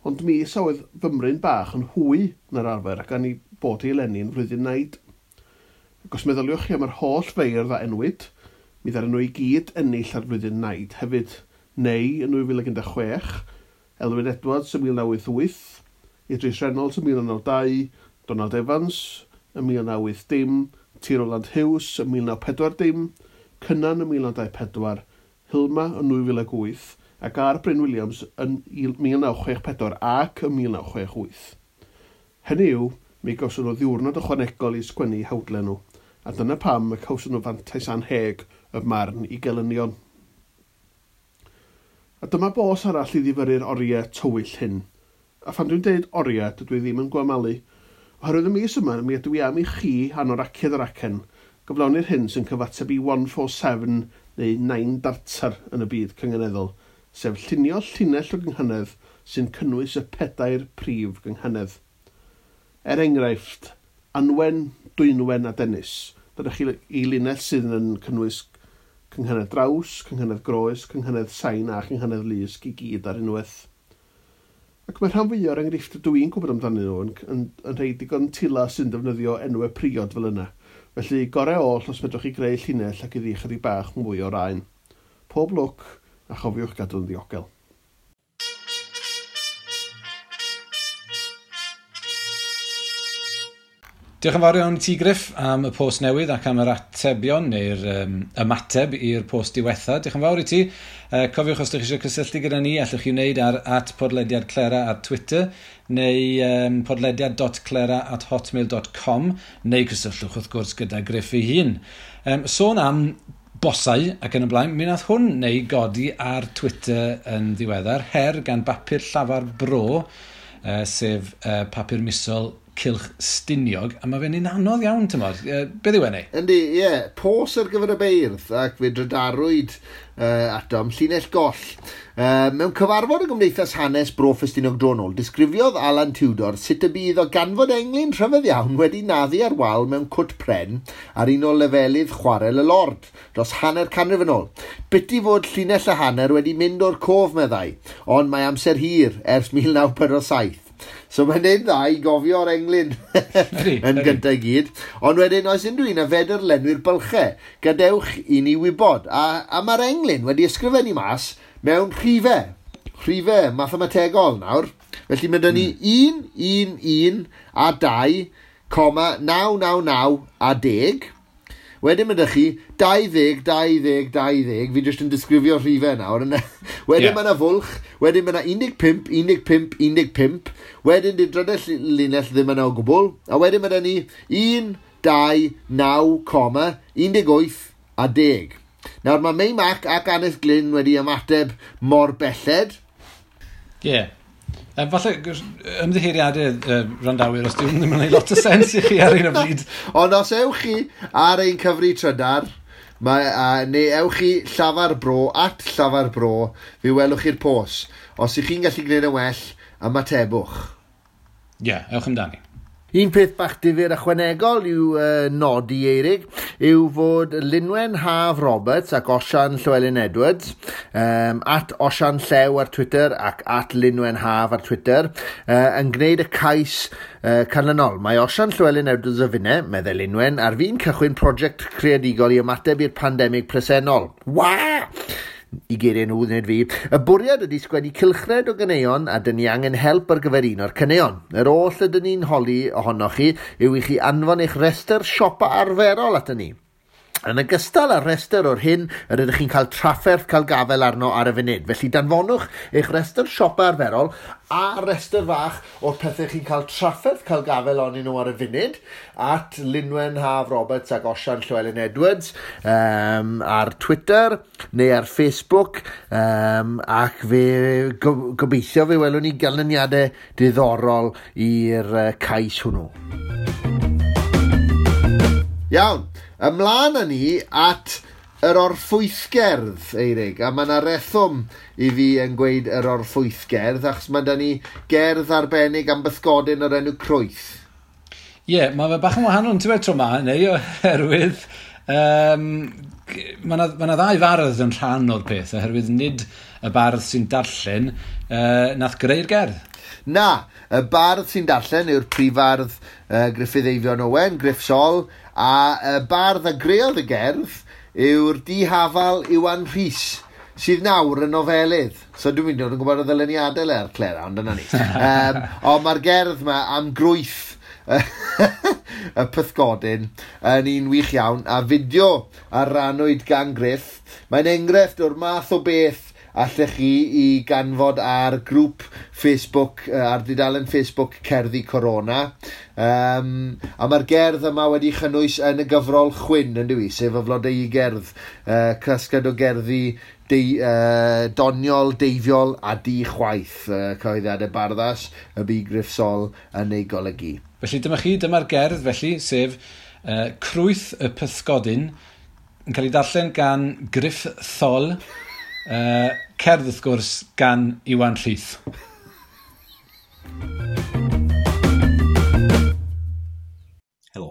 ond mis a oedd fymryn bach yn hwy na'r arfer ac gan i bod i eleni yn flwyddyn naid. Ac os meddyliwch chi am yr holl feirdd a enwyd, mi ddaru nhw i gyd ennill ar flwyddyn naid hefyd, neu yn 2016, Elwyn Edwards yn 1988, Idris Reynolds yn 1992, Donald Evans yn 1980, T. Roland Hughes yn 1940, Cynan yn 1924, Hilma yn 2008 ac R. Bryn Williams yn 1964 ac yn 1968. Hynny yw, mi gawson nhw ddiwrnod ychwanegol i sgwennu hawdlen nhw, a dyna pam y cawson nhw fantais anheg y marn i gelynion. A dyma bos arall i ddifyrru'r oriau tywyll hyn. A phan dwi'n deud oriau, dydw i ddim yn gwamalu. Oherwydd y mis yma, mi ydw i am i chi anoraciad yr acen gyflawni'r hyn sy'n cyfateb i 147 neu 9 dartar yn y byd cynganeddol, sef llunio llinell o gynghanedd sy'n cynnwys y pedair prif gynghanedd. Er enghraifft, Anwen, Dwynwen a Dennis. Dyna chi i linell sydd yn cynnwys cynghanedd draws, cynghanedd groes, cynghanedd sain a chynghanedd lusg i gyd ar unwaith. Ac mae rhan fwyaf o'r enghreifftiau dw i'n gwybod amdanyn nhw yn rhai digon tila sy'n defnyddio enwau priod fel yna. Felly, gorau oll os medrwch chi greu llinell ac iddi chydig bach mwy o raen. Pob lwc a chofiwch gadw'n ddiogel. Diolch yn fawr iawn i ti, Griff, am y post newydd ac am yr atebion neu'r ymateb i'r post diwetha. Diolch yn fawr i ti. Cofiwch os ydych chi eisiau cysylltu gyda ni, allwch chi wneud ar @podlediadclera ar Twitter neu podlediad.clera@hotmail.com neu cysylltwch wrth gwrs gyda Griff ei hun. Sôn am bosau ac yn y blaen, mi nath hwn neu godi ar Twitter yn ddiweddar, her gan bapur Llafar Bro, sef papur misol Cylch Stiniog, a mae fe'n un anodd iawn, tymod. Beth yw e neu? Yndi, ie. Yeah. Pos ar gyfer y beirdd, ac fe drydarwyd atom, llinell goll. Mewn cyfarfod y Gymdeithas Hanes Bro Ffestiniog Dronol, disgrifiodd Alan Tudor sut y bydd o ganfod englyn rhyfedd iawn wedi naddu ar wal mewn cwt pren ar un o lefelydd chwarel y Lord, dros hanner canrif yn ôl. Biti fod llinell a hanner wedi mynd o'r cof, meddai, ond mae amser hir ers 1947. So mae'n neud dda i gofio'r englyn yn gyntaf i gyd. Ond wedyn, oes unrhyw un a fedr lenwi'r bylchau, gadewch i ni wybod. A mae'r englyn wedi ysgrifennu mas mewn rhifau. Rhifau mathemategol nawr. Felly mae 'da ni 1, 1, 1 a 2, 999 a 10. Wedyn mae 'da chi 20, 20, 20. Fi jyst yn disgrifio rhifau nawr. Wedyn mae yna fwlch. Wedyn mae yna 15, 15, 15. Wedyn di'r drydedd linell ddim yna o gwbl. A wedyn mae 'da ni 1, 2, 9, 18 a 10. Nawr mae Mei Mac ac Annes Glyn wedi ymateb mor belled. Ie. Yeah. Falle ymddiheuriadau randawyr os dyw ddim yn gwneud lot o sens i chi ar un o bryd. Ond os ewch chi ar ein cyfri trydar, neu ewch chi Llafar Bro, @Llafar Bro, fe welwch chi'r pos. Os ych chi'n gallu gwneud yn well, ymatebwch. Ie, yeah, ewch amdani. Un peth bach difyr ychwanegol yw nodi, Eirig, yw fod Linwen Haf Roberts ac Osian Llywelyn Edwards, @Osian Llew ar Twitter ac @Linwen Haf ar Twitter, yn gwneud y cais canlynol. Mae Osian Llywelyn Edwards a finne, meddai Linwen, ar fin cychwyn prosiect creadigol i ymateb i'r pandemig presennol. Wa! I geiriau nhw, wneud fi. Y bwriad ydy sgwennu cylchred o ganeuon a dyn ni angen help ar gyfer un o'r caneuon. Yr oll ydyn ni'n holi ohonoch chi yw i chi anfon eich rhestr siopa arferol aton ni. Yn ogystal â'r rhestr o'r hyn yr ydych chi'n cael trafferth cael gafael arno ar y funud. Felly danfonwch eich rhestr siopa arferol a rhestr fach o'r pethau chi'n cael trafferth cael gafael arnyn nhw ar y funud at Lynwen Haf Roberts ac Osian Llywelyn Edwards ar Twitter neu ar Facebook, ac fe gobeithio fe welwn ni ganlyniadau diddorol i'r cais hwnnw. Iawn, ymlaen â ni at yr orffwythgerdd, Eirig, a mae yna rheswm i fi yn gweud yr orffwythgerdd, achos mae da ni gerdd arbennig am bysgodyn o'r enw Crwyth. Ie, yeah, mae fe bach yn wahanol yn tywe tro ma, neu oherwydd mae yna ddau fardd yn rhan o'r peth, oherwydd nid y bardd sy'n darllen nath greu'r gerdd. Na, y bardd sy'n darllen yw'r prifardd Gruffydd Eifion Owen, Gruff Sol, a y bardd a greodd y gerdd yw'r dihafal Iwan Rhys, sydd nawr yn nofelydd. So dwi'n mynd yn gwybod y ddyluniadau le ar Clera, ond dyna ni. Ond mae'r gerdd yma am grwyth y pysgodyn yn un wych iawn, a fideo a rannwyd gan Gruff. Mae'n enghraifft o'r math o beth allech chi i ganfod ar grŵp Facebook, ar dudalen Facebook Cerddi Corona. A mae'r gerdd yma wedi chynnwys yn y gyfrol Chwyn, yn dyw i, sef y flodeu gerdd, casgliad o gerddi doniol, deifiol a di-chwaith, cyhoeddiadau Barddas, y bu Gruff Sol yn ei golygu. Felly dyma chi, dyma'r gerdd felly, sef Crwyth y Pysgodyn, yn cael ei darllen gan Gruff Thol, cerdd wrth gwrs gan Iwan Rhys. Helo.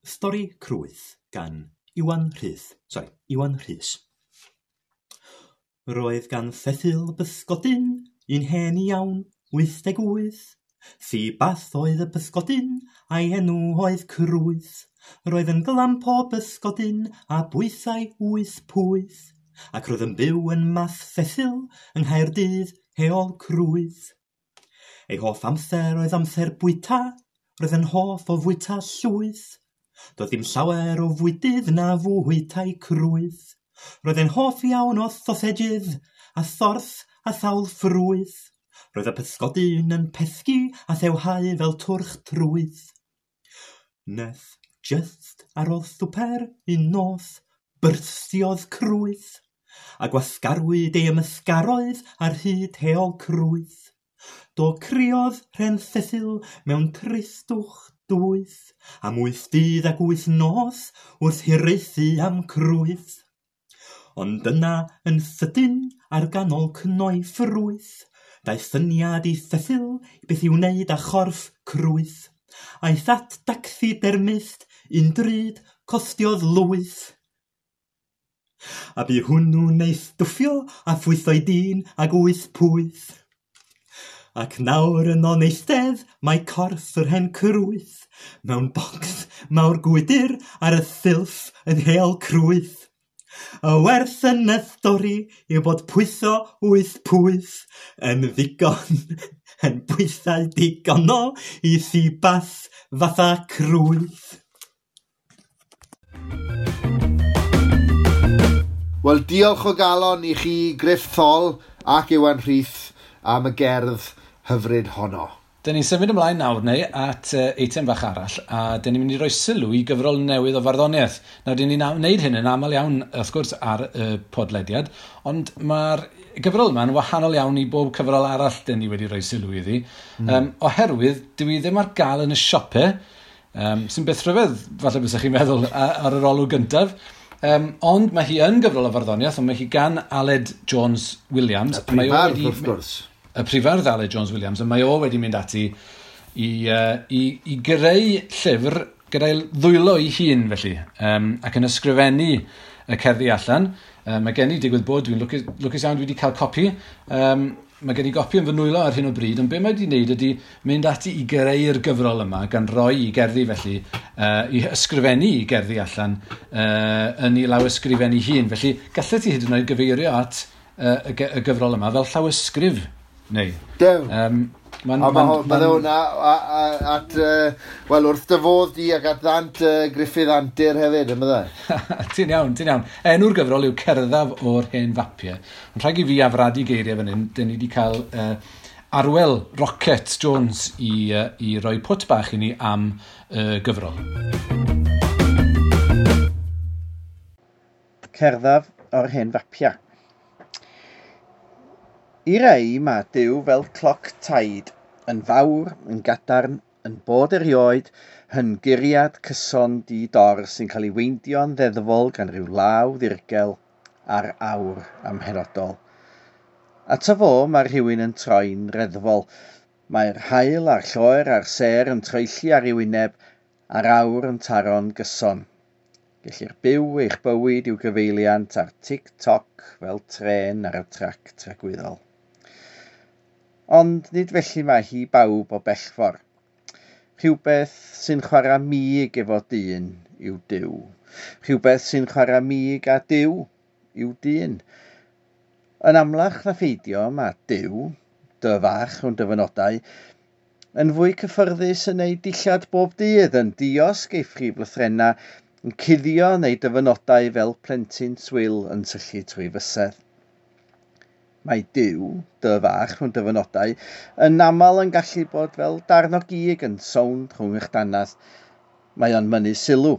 Stori Crwyth gan Iwan Rhys. Sorry, Iwan Rhys. Roedd gan Cecil bysgodyn un hen iawn, 88. Seabass oedd y bysgodyn a'i enw oedd Crwyth. Roedd yn glamp o bysgodyn a bwysau 8 pwyth. Ac roedd yn byw yn Math Cecil yng Nghaerdydd, Heol Crwyth. Ei hoff amser oedd amser bwyta, roedd yn hoff o fwyta llwyth. Doedd dim llawer o fwydydd na fwytai Crwyth. Roedd e'n hoff iawn o sausages a thorth a sawl ffrwyth. Roedd y pysgodyn yn pesgi a thewhau fel twrch trwyth. Nes just ar ôl swper un nos byrstiodd Crwyth, a gwasgarwyd ei ymysgaroedd ar hyd Heol Crwyth. Do criodd Rhen Cecil mewn tristwch dwys, am 8 dydd ac 8 nos wrth hiraethu am Crwyth. Ond yna yn sydyn ar ganol cnoi ffrwyth, daeth syniad i Cecil beth i'w wneud â chorff Crwyth. Aeth at dacsidermist un drud costiodd lwyth. A bu hwnnw'n ei stwffio a phwytho'i dyn ag 8 pwyth. Ac nawr yno'n eistedd mae corff yr hen Crwyth mewn bocs mawr gwydr ar y silff yn Heol Crwyth. Y werth yn y stori yw bod pwytho 8 pwyth yn ddigon, yn bwysau digonol i seabass fatha Crwyth. Wel, diolch o galon i chi Gruff Thol ac Iwan Rhys am y gerdd hyfryd honno. Dyn ni'n symud ymlaen nawr neu at eitem fach arall, a dyn ni'n mynd i roi sylw i gyfrol newydd o farddoniaeth. Nawr, dyn ni'n wneud hyn yn aml iawn, wrth gwrs, ar y podlediad, ond mae'r gyfrol yma'n wahanol iawn i bob cyfrol arall dyn ni wedi rhoi sylw iddi. Oherwydd, dwi ddim ar gael yn y siopau, sy'n beth rhyfedd, falle bysach chi'n meddwl, ar yr olwg gyntaf. Ond mae hi yn gyfrol o farddoniaeth, ond mae hi gan Aled Jones Williams. Y prifardd, wrth gwrs. Y prifardd Aled Jones Williams, a mae o wedi mynd ati i greu llyfr gyda'i ddwylo ei hun, felly, ac yn ysgrifennu y cerddi allan. Mae gen i digwydd bod, dwi'n lwcus iawn dwi wedi cael copi. Mae gen i gopi yn fy nwylo ar hyn o bryd, ond be mae wedi wneud ydy mynd ati i greu'r gyfrol yma, gan roi i gerddi felly, i ysgrifennu i gerddi allan yn ei lawysgrifennu hun. Felly, gallet ti hyd yn oed gyfeirio at y gyfrol yma fel llawysgrif. Neu. Dew. A mae hwnna at, wel, wrth dy fodd di ac at ddant Gruffydd Antur hefyd, yn bydde? Ti'n iawn, ti'n iawn. Enw'r gyfrol yw Cerddaf o'r Hen Fapiau. Ond rhaid i fi afradu geiriau fan hyn, dyn ni wedi cael Arwel Rocket Jones i roi pwt bach i ni am gyfrol. Cerddaf o'r Hen Fapiau. I rei mae Duw fel cloc taid, yn fawr, yn gadarn, yn bod erioed, yn guriad cyson di-dor sy'n cael ei weindio'n ddeddfol gan ryw law ddirgel ar awr amhenodol. Ato fo mae rhywun yn troi'n reddfol. Mae'r haul a'r lloer a'r sêr yn troelli ar ei wyneb a'r awr yn taro'n gyson. Gellir byw eich bywyd i'w gyfeiliant ar tic-toc fel trên ar y trac tragwyddol. Ond nid felly mae hi bawb o bell ffordd. Rhywbeth sy'n chwarae mig efo dyn yw Duw. Rhywbeth sy'n chwarae mig a Duw yw dyn. Yn amlach na pheidio mae Duw, dy fach rhwng dyfynodau, yn fwy cyffyrddus yn ei dillad bob dydd, yn diosg ei phrif lythrennau, yn cuddio neu dyfynodau fel plentyn swil yn syllu trwy fysedd. Mae Duw, dy fach rhwng dyfynodau, yn aml yn gallu bod fel darn o gig yn sownd rhwng eich dannedd. Mae o'n mynnu sylw,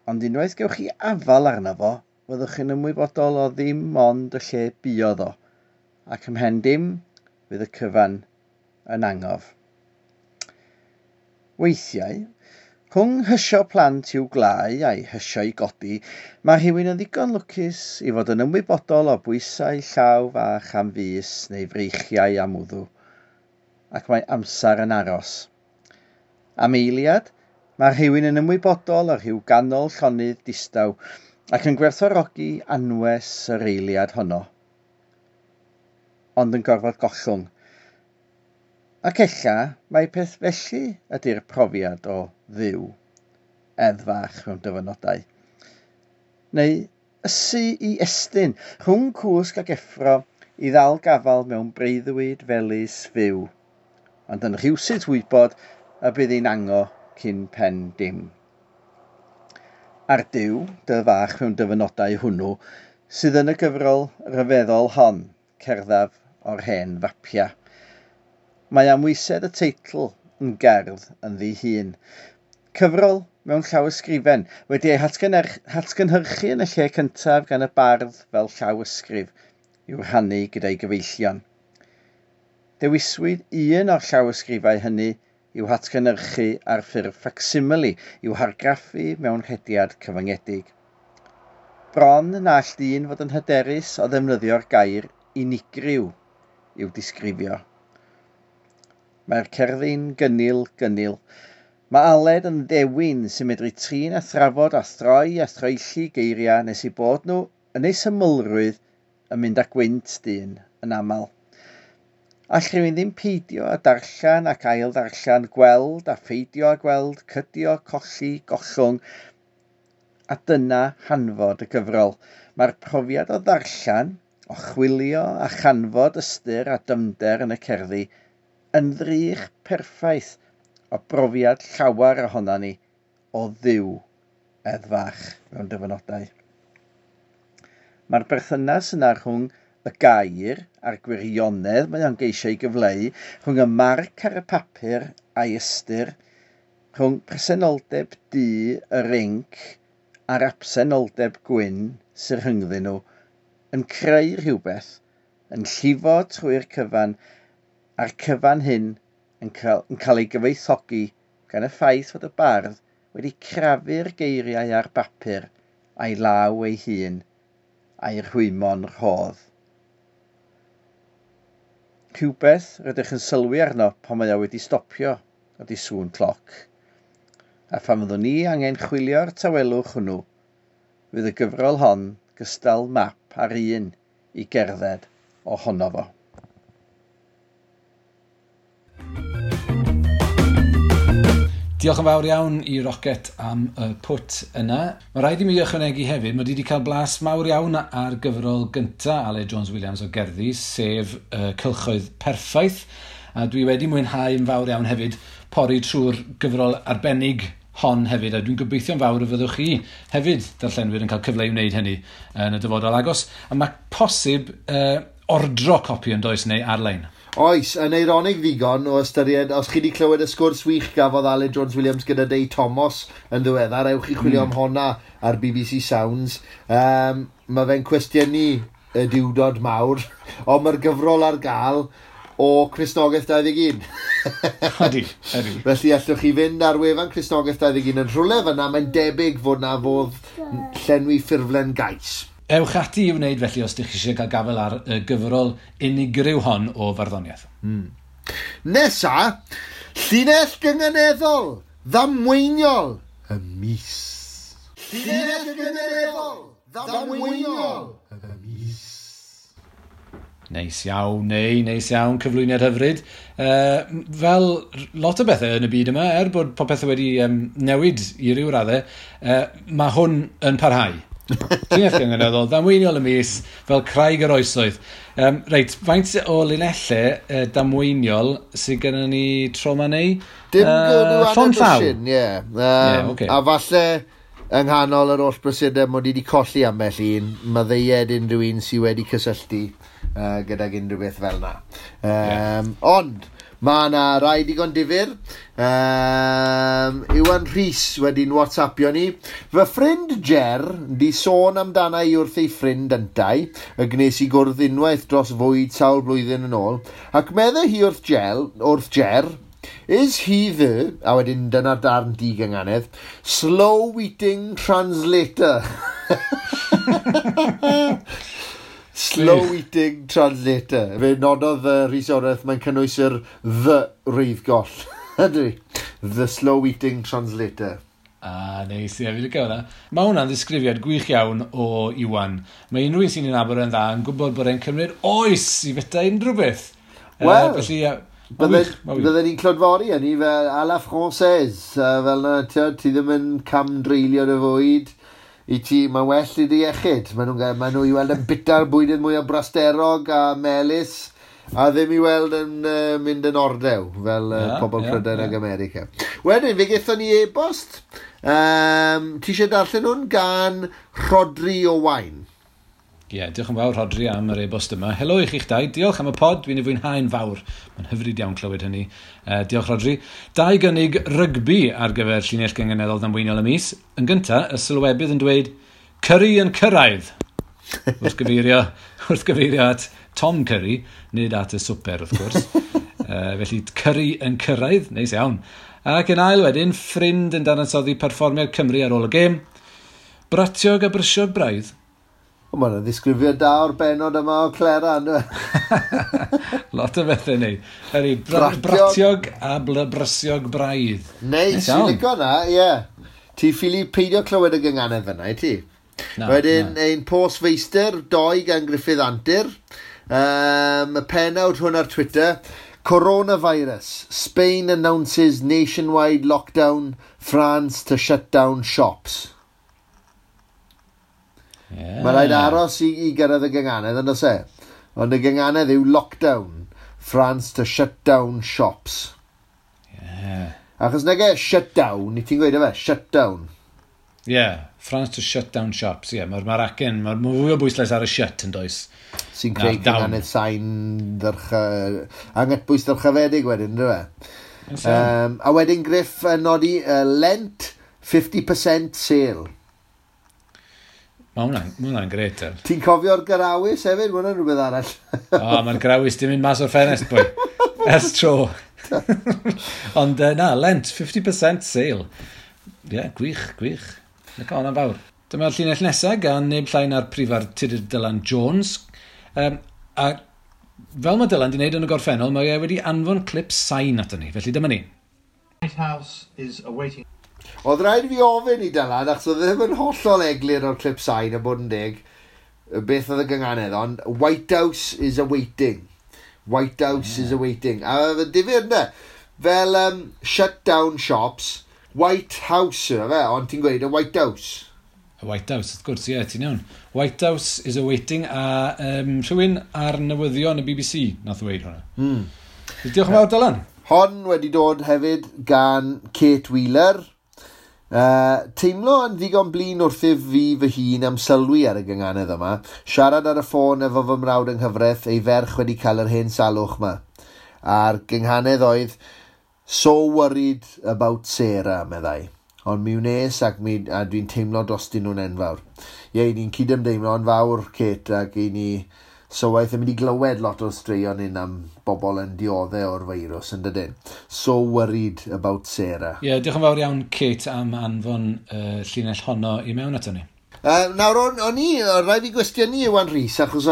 ond unwaith gewch chi afal arno fo, fyddwch chi'n ymwybodol o ddim ond y lle buodd o, ac ymhen dim fydd y cyfan yn angof. Weithiau, rhwng hysio plant i'w glau a'i hysio i godi, mae rhywun yn ddigon lwcus i fod yn ymwybodol o bwysau llaw fach am fys neu freichiau am wddw, ac mae amser yn aros. Am eiliad, mae rhywun yn ymwybodol o rhyw ganol llonydd distaw ac yn gwerthfawrogi anwes yr eiliad honno, ond yn gorfod gollwng. Ac ella mai peth felly ydy'r profiad o Dduw, edd fach mewn dyfynodau. Neu ysu i estyn rhwng cwsg ac effro i ddal gafal mewn breuddwyd felys fyw, ond yn rhywsut wybod y bydd hi'n ango cyn pen dim. A'r Duw, dy fach mewn dyfynodau hwnnw, sydd yn y gyfrol ryfeddol hon, Cerddaf o'r Hen Fapiau. Mae amwysedd y teitl yn gerdd ynddi hun. Cyfrol mewn llawysgrifen wedi ei hatgynhyrchu yn y lle cyntaf gan y bardd fel llawysgrif i'w rhannu gyda'i gyfeillion. Dewiswyd un o'r llawysgrifau hynny i'w hatgynhyrchu ar ffurf facsimile i'w hargraffu mewn rhediad cyfyngedig. Bron na all dyn fod yn hyderus o ddefnyddio'r gair unigryw i'w disgrifio. Mae'r cerddi'n gynnil gynnil. Mae Aled yn ddewin sy'n medru trin a thrafod a throi a throelli geiriau nes i bod nhw yn eu symlrwydd yn mynd â gwynt dyn yn aml. All rhywun ddim peidio a darllen ac ail ddarllen, gweld a pheidio a gweld, cydio, colli, gollwng, a dyna hanfod y gyfrol. Mae'r profiad o ddarllen, o chwilio a chanfod ystyr a dyfnder yn y cerddi yn ddrych perffaith o brofiad llawer ohonon ni o Dduw edd fach mewn dyfynodau. Mae'r berthynas yna rhwng y gair a'r gwirionedd mae o'n geisio ei gyfleu, rhwng y marc ar y papur a'i ystyr, rhwng presenoldeb du yr inc a'r absenoldeb gwyn sy'n rhyngddyn nhw, yn creu rhywbeth, yn llifo trwy'r cyfan, a'r cyfan hyn yn cael ei gyfoethogi gan y ffaith fod y bardd wedi crafu'r geiriau ar bapur a'i law ei hun a'i rhwymo'n rhodd. Rhywbeth rydych yn sylwi arno pan mae o wedi stopio ydy sŵn cloc. A phan fyddwn ni angen chwilio'r tawelwch hwnnw, fydd y gyfrol hon gystal map ar un i gerdded ohono fo. Diolch yn fawr iawn i Rocket am y pwt yna. Mae rhaid i mi ychwanegu hefyd, mae wedi cael blas mawr iawn ar gyfrol gynta Aled Jones Williams o gerddi, sef Cylchoedd Perffaith. A dwi wedi mwynhau yn fawr iawn hefyd pori trwy'r gyfrol arbennig hon hefyd, a dwi'n gobeithio'n fawr y fyddwch chi hefyd, darllenwyr, yn cael cyfle i wneud hynny yn y dyfodol agos. A mae posib ordro copi yn does neu ar-lein. Oes, yn eironig ddigon o ystyried, os chi wedi clywed y sgwrs wych gafodd Aled Jones Williams gyda Dei Thomas yn ddiweddar, ewch i chwilio am honna ar BBC Sounds. Mae fe'n cwestiynu y diwdod mawr, ond mae'r gyfrol ar gael o Cristnogaeth 21. Ydy, ydy. Felly allwch chi fynd ar wefan Cristnogaeth 21 yn rhywle fyna, mae'n debyg fod na fodd llenwi ffurflen gais. Ewch ati i wneud felly os ydych chi eisiau cael gafael ar y gyfrol unigryw hon o farddoniaeth. Nesa, llinell gynganeddol, ddamweiniol, y mis. Llinell gynganeddol, ddamweiniol, y mis. Neis iawn, neis iawn, cyflwyniad hyfryd. Fel lot o bethau yn y byd yma, er bod popeth wedi newid i ryw raddau, mae hwn yn parhau. Llinell gynganeddol, ddamweiniol y mis, fel craig yr oesoedd. Reit, faint o linellau damweiniol sydd gennym ni tro ma neu? Dim llond llaw. Ie. Okay. A falle yng nghanol yr holl brysurdeb mod i wedi colli ambell un, maddeued unrhyw un sydd wedi cysylltu gydag unrhyw beth fel yna. Ond, mae yna rai digon difyr. Iwan Rhys wedi'n WhatsAppio ni. Fy ffrind Ger di sôn amdana i wrth ei ffrind yntau, y gnes i gwrdd unwaith dros fwyd sawl blwyddyn yn ôl, ac meddai hi wrth Ger, is he the, a wedyn dyna'r darn digynganedd, slow eating translator. Slow eating translator. Fe nododd Rhys Oreth, mae'n cynnwys yr the reiddgoll. Ydy. The slow eating translator. Ah, neis, ie, fi licio hwnna. Mae hwnna'n ddisgrifiad gwych iawn o Iwan. Mae unrhyw un sy'n ei nabod yn dda yn gwybod bod e'n cymryd oes i fita unrhyw beth. Wel, felly, bydden ni'n clodfori hynny fel à la française. Fel na, ti ddim yn camdreulio dy fwyd. I ti, mae'n well i dy iechyd. Maen nhw i weld yn bita'r bwydydd mwy o brasterog a melys, a ddim i weld yn mynd yn ordew, fel pobl Prydain ag America. Wedyn, fe gaethon ni e-bost. Ti eisiau darllen hwn gan Rhodri Owain? Ie, yeah, diolch yn fawr Rhodri am yr e-bost yma. Helo i chi'ch dau, diolch am y pod, dwi'n ei fwynhau'n fawr. Mae'n hyfryd iawn clywed hynny. Diolch Rhodri. Dau gynnig rygbi ar gyfer llinell gynganeddol ddamweiniol y mis. Yn gyntaf, y sylwebydd yn dweud, Curry yn cyrraedd. Wrth gyfeirio at Tom Curry, nid at y swper wrth gwrs. Felly, Curry yn cyrraedd, neis iawn. Ac yn ail wedyn, ffrind yn dadansoddi perfformiad Cymru ar ôl y gêm. Bratiog a brysiog braidd. O, mae'n ddisgrifiad da o'r benod yma o Clera, ynddo? Lot o bethau neu. Ydy, bratiog a brysiog braidd. Neis, ti'n licio na, ie. Ti ffili peidio clywed y gynganedd fyna, i ti? Na, wedyn, ein post feistr, doi gan Griffith Antur. Y pennawd hwn ar Twitter. Coronavirus. Spain announces nationwide lockdown. France to shut down shops. Yeah. Mae rhaid aros i gyrraedd y gynganedd, yn does e? Ond y gynganedd yw lockdown. France to shut down shops. Yeah. Achos nag e shut down, i ti'n gweud efe, shut down. Yeah, France to shut down shops. Yeah, mae'r acen, mae'r fwy o bwyslais ar y shut yn does. Sy'n creu gynganedd sain angytbwys ddyrchafedig wedyn, ynddo fe? A wedyn Griff yn nodi Lent 50% sale. Mae hwnna'n gret. Ti'n cofio'r garawys hefyd? Mae hwnna'n rhywbeth arall. O, mae'r garawys di mynd mas o'r ffenest, boi. Ers tro. Ond na, Lent, 50% sale. Ie, yeah, gwych, gwych. Lyco hwnna'n fawr. Dyma'r llinell nesaf gan neb llai na'r prifardd Tudur Dylan Jones. A fel mae Dylan di wneud yn y gorffennol, mae e wedi anfon clip sain ato ni. Felly dyma ni. White House is awaiting. Oedd rhaid fi ofyn i Dylan, achos oedd ddim yn hollol eglur o'r clip sain a bod yn deg, beth oedd y gynganedd, ond White House is awaiting. White House is awaiting. A difyr, ynddo? Fel shut down shops, White House yna fe, ond ti'n gweud y White House. Y White House, wrth gwrs, ie, yeah, ti'n iawn. White House is awaiting, a rhywun ar newyddion y BBC nath ddweud hwnna. Diolch yn fawr, Dylan. Hon wedi dod hefyd gan Kate Wheeler. Teimlo yn ddigon blin wrthyf fi fy hun am sylwi ar y gynganedd yma. Siarad ar y ffôn efo fy mrawd yng nghyfraith, ei ferch wedi cael yr hen salwch yma. A'r gynghanedd oedd, "So worried about Sarah," meddai. "Ond mi wnes ac mi, a dwi'n teimlo drostyn nhw'n enfawr." Ie, ni'n cydymdeimlo yn fawr, Kate, ac i ni sylwaith yn mynd i glywed lot o'r straeon hyn am bobl yn dioddef o'r feirws yn dydyn. So worried about Sarah. Ie, yeah, diolch yn fawr iawn, Kate, am anfon llinell honno i mewn ato ni. Nawr, o'n i, rhaid fi gwestiynu Iwan Rhys, achos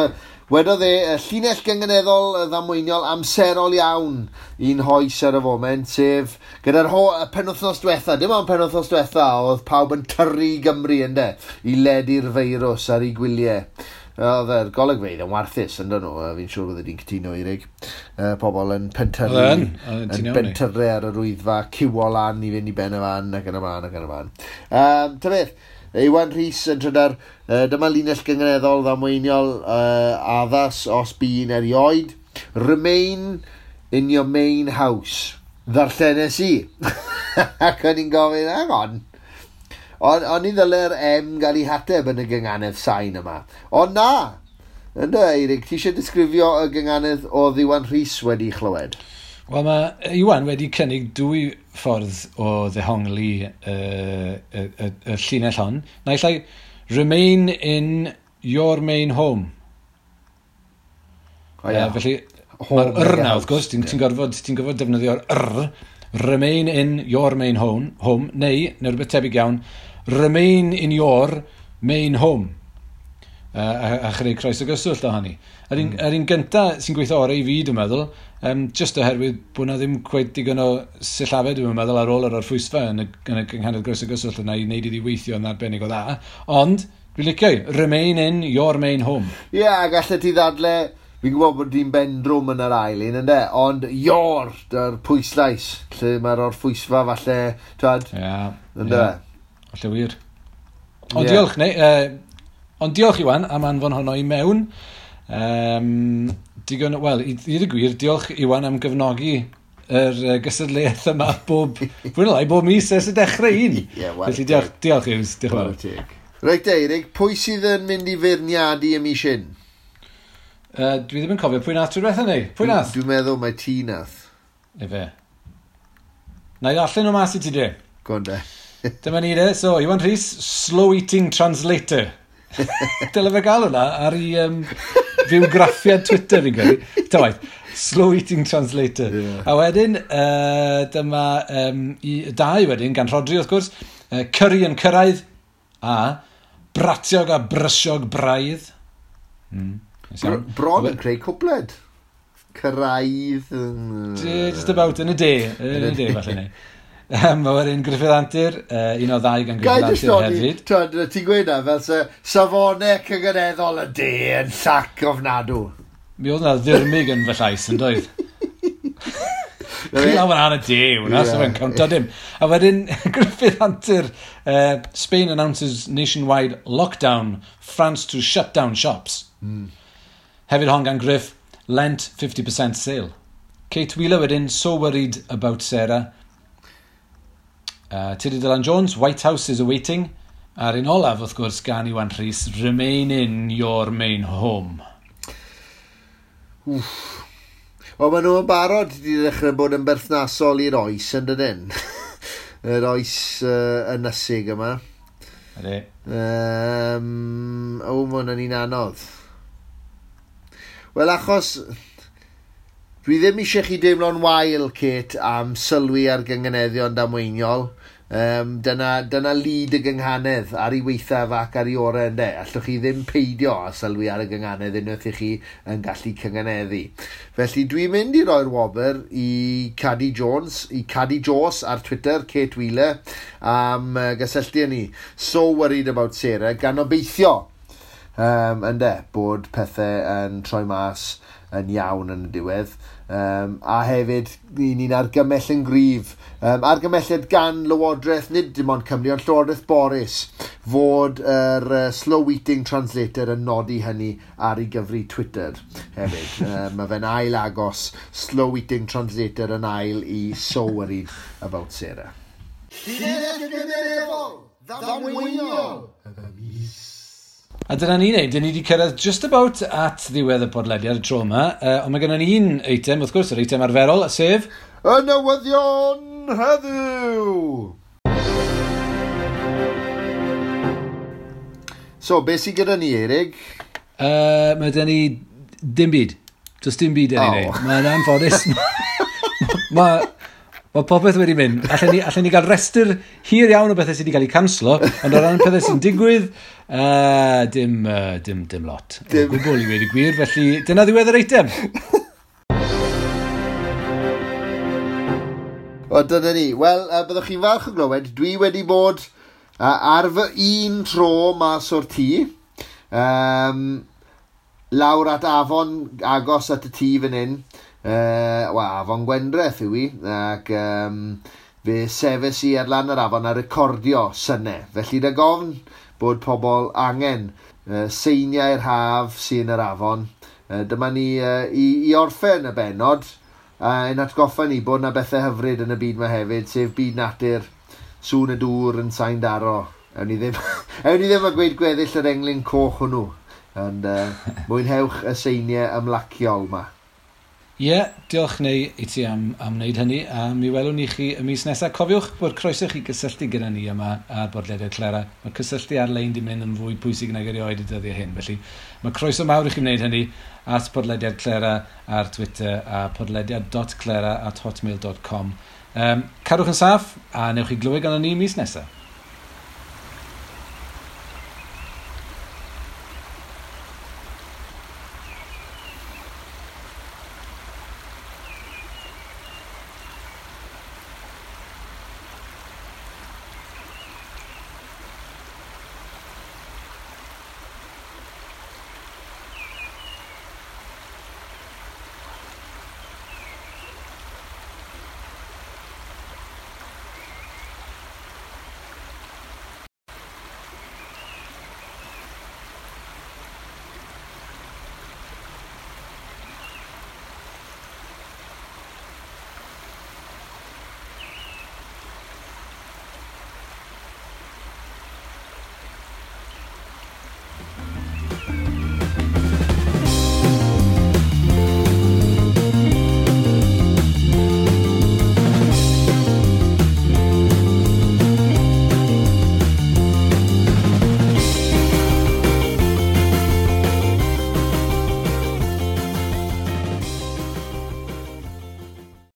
wedodd e, llinell gynganeddol ddamweiniol amserol iawn i'n hoes ar y foment, sef gyda'r y penwythnos diwetha, dim ond penwythnos diwetha, oedd pawb yn tyrru i Gymru ynde, i ledu'r feirws ar ei gwyliau. Oedd yr golygfeydd yn warthus yn dyn nhw, fi'n siŵr bydde di'n cytuno, Eirig. Pobl yn pentyrru, Oedd yn, oedd ti'n yn iawn ni. pentyrru ar yr wyddfa, ciwo lan i fynd i ben y fan ac yn y blaen ac yn y blaen. Ta beth, Iwan Rhys yn trydar, dyma linell gynganeddol ddamweiniol addas os bu'n erioed. "Remain in your main house." Ddarllenes i. Ac o'n i'n gofyn, "Hang on. O'n i ddyle'r M gael ei hateb yn y gynganedd sain yma." Ond na! Ynddo, Eirig, ti eisiau disgrifio y gynganedd o Iwan Rhys wedi chlywed? Wel, mae Iwan wedi cynnig dwy ffordd o ddehongli y llinell hon. Naill ai, "Remain in your main home." O, ia. Felly, Home mae'r yr neu na, house. wrth gwrs, ti'n gorfod defnyddio'r yr, "Remain in your main home," neu rhywbeth tebyg iawn, "Remain in your main home." A chreu croeso gyswllt o hynny. Yr un gynta sy'n gweithio orau i fi, dwi'n meddwl, just oherwydd bod na ddim cweit digon o sillafau, dwi'n meddwl, ar ôl yr orffwysfa yn y gynghanedd groeso gyswllt yna i wneud iddi weithio yn arbennig o dda. Ond, dwi'n licio i, "Remain in your main home." Ie, yeah, gallet ti ddadle, fi'n gwybod bod di'n bendrwm yn yr ail un, ynde? Ond your, dy'r pwyslais, lle mae'r orffwysfa falle, twad, ynde? Ie, falle wir. Ond diolch, neu, ond diolch Iwan am anfon honno i mewn. Digon, wel, i ddweud y gwir, diolch Iwan am gefnogi yr gystadleuaeth yma bob, fwy neu lai, bob mis ers y dechrau un. Ie, wel, Felly diolch, diolch Hughes, diolch yn fawr. Chwarae teg. Reit, Eirig, pwy sydd yn mynd i feirniadu y mis hyn? Dwi ddim yn cofio pwy nath trwy diwetha ni. Pwy nath? Dwi'n meddwl mai ti nath. Efe. Na i ddarllen o mas i ti de. Go on de. Dyma ni de. So, Iwan Rhys, slow eating translator. Dyle fe gael hwnna ar ei fywgraffiad Twitter fi'n credu. Ta waith, slow eating translator. A wedyn, dyma i, dau wedyn, gan Rhodri wrth gwrs, curry yn cyrraedd, a bratiog a brysiog braidd. Neis iawn. Bron yn creu cwpled. Cyrraedd. Just about yn y de. Yn y de, falle neu. Mae wedyn Griffith Antur, un o ddau gan Gai Griffith jyst Antur nodi, hefyd. twad, ti'n gweud na, fel se safonau cynghaneddol y de yn llac ofnadw. Mi oedd yna ddirmyg yn fy llais yn doedd. Chi lawr yn y de, hwnna, so fe'n cownto dim. A wedyn, Griffith Antur, "Spain announces nationwide lockdown, France to shut down shops." Hefyd hon gan Griff, "Lent 50% sale." Kate Wheeler wedyn, "So worried about Sarah." Tudur Dylan Jones, "White House is awaiting." A'r un olaf, wrth gwrs, gan Iwan Rhys, "Remain in your main home." Wel, maen nhw yn barod wedi dechrau bod yn berthnasol i'r oes yn dydyn. Yr oes ynysig yma. Ydy. O, mae hwnna'n un anodd. Wel, achos dwi ddim eisiau chi deimlo'n wael, Kate, am sylwi ar gynganeddion damweiniol. Dyna lid y gynghanedd ar ei weithaf ac ar ei orau ynde. Allwch chi ddim peidio â sylwi ar y gynghanedd unwaith i chi yn gallu cynganeddu. Felly dwi'n mynd i roi'r wobr i Cadi Jones, i Cadi Jos ar Twitter, Kate Wheeler, am gysylltu â ni. "So worried about Sarah," gan obeithio ynde, bod pethau yn troi mas yn iawn yn y diwedd. A hefyd, ni'n argymell yn gryf. Argymelliad gan Lywodraeth, nid dim ond Cymru, ond Llywodraeth Boris, fod yr slow eating translator yn nodi hynny ar ei gyfri Twitter hefyd. Mae fe'n ail agos slow eating translator yn ail i So Worried About Sarah. Llinell gymunedol, ddamweiniol, y mis. A dyna ni'n neud, dyn ni wedi cyrraedd just about at ddiwedd y podlediad y tro yma, ond mae gennym ni un eitem, wrth gwrs, yr eitem arferol, sef y newyddion heddiw! So, beth sydd gyda ni, Erik? Mae gyda ni dim byd. Does dim byd yn ei wneud. Mae'n anffodus. Mae popeth wedi mynd. Allen ni gael restr hir iawn o bethau sydd wedi cael eu canslo, ond o ran pethau sy'n digwydd, dim lot. Dim. O gwbl i wedi gwir, felly dyna ddiwedd yr eitem. O, dyna ni. Wel, byddwch chi'n falch o glywed, dwi wedi bod ar fy un tro mas o'r tŷ, lawr at afon agos at y tŷ fan hyn. Wel, afon Gwendreth yw i, ac fe sefes i ar lan yr afon a recordio synau. Felly rhag ofn bod pobl angen seiniau'r haf sy'n yr afon. Dyma ni i orffen y bennod, yn atgoffa ni bod na bethau hyfryd yn y byd yma hefyd, sef byd natur, sŵn y dŵr yn sain daro. Ewn ni ddim, ewn ni ddim a gweud gweddill yr englyn coch hwnnw, ond mwynhewch y seiniau ymlaciol yma. Ie, yeah, diolch neu i ti am wneud hynny, a mi welwn ni chi y mis nesaf. Cofiwch bod croeso chi gysylltu gyda ni yma ar bodlediad Clera. Mae cysylltu ar-lein di mynd yn fwy pwysig nag erioed y dyddiau hyn, felly mae croeso mawr i chi wneud hynny at podlediad Clera ar Twitter a podlediad.clera@hotmail.com. Cadwch yn saff a newch chi glywed gan ni mis nesaf.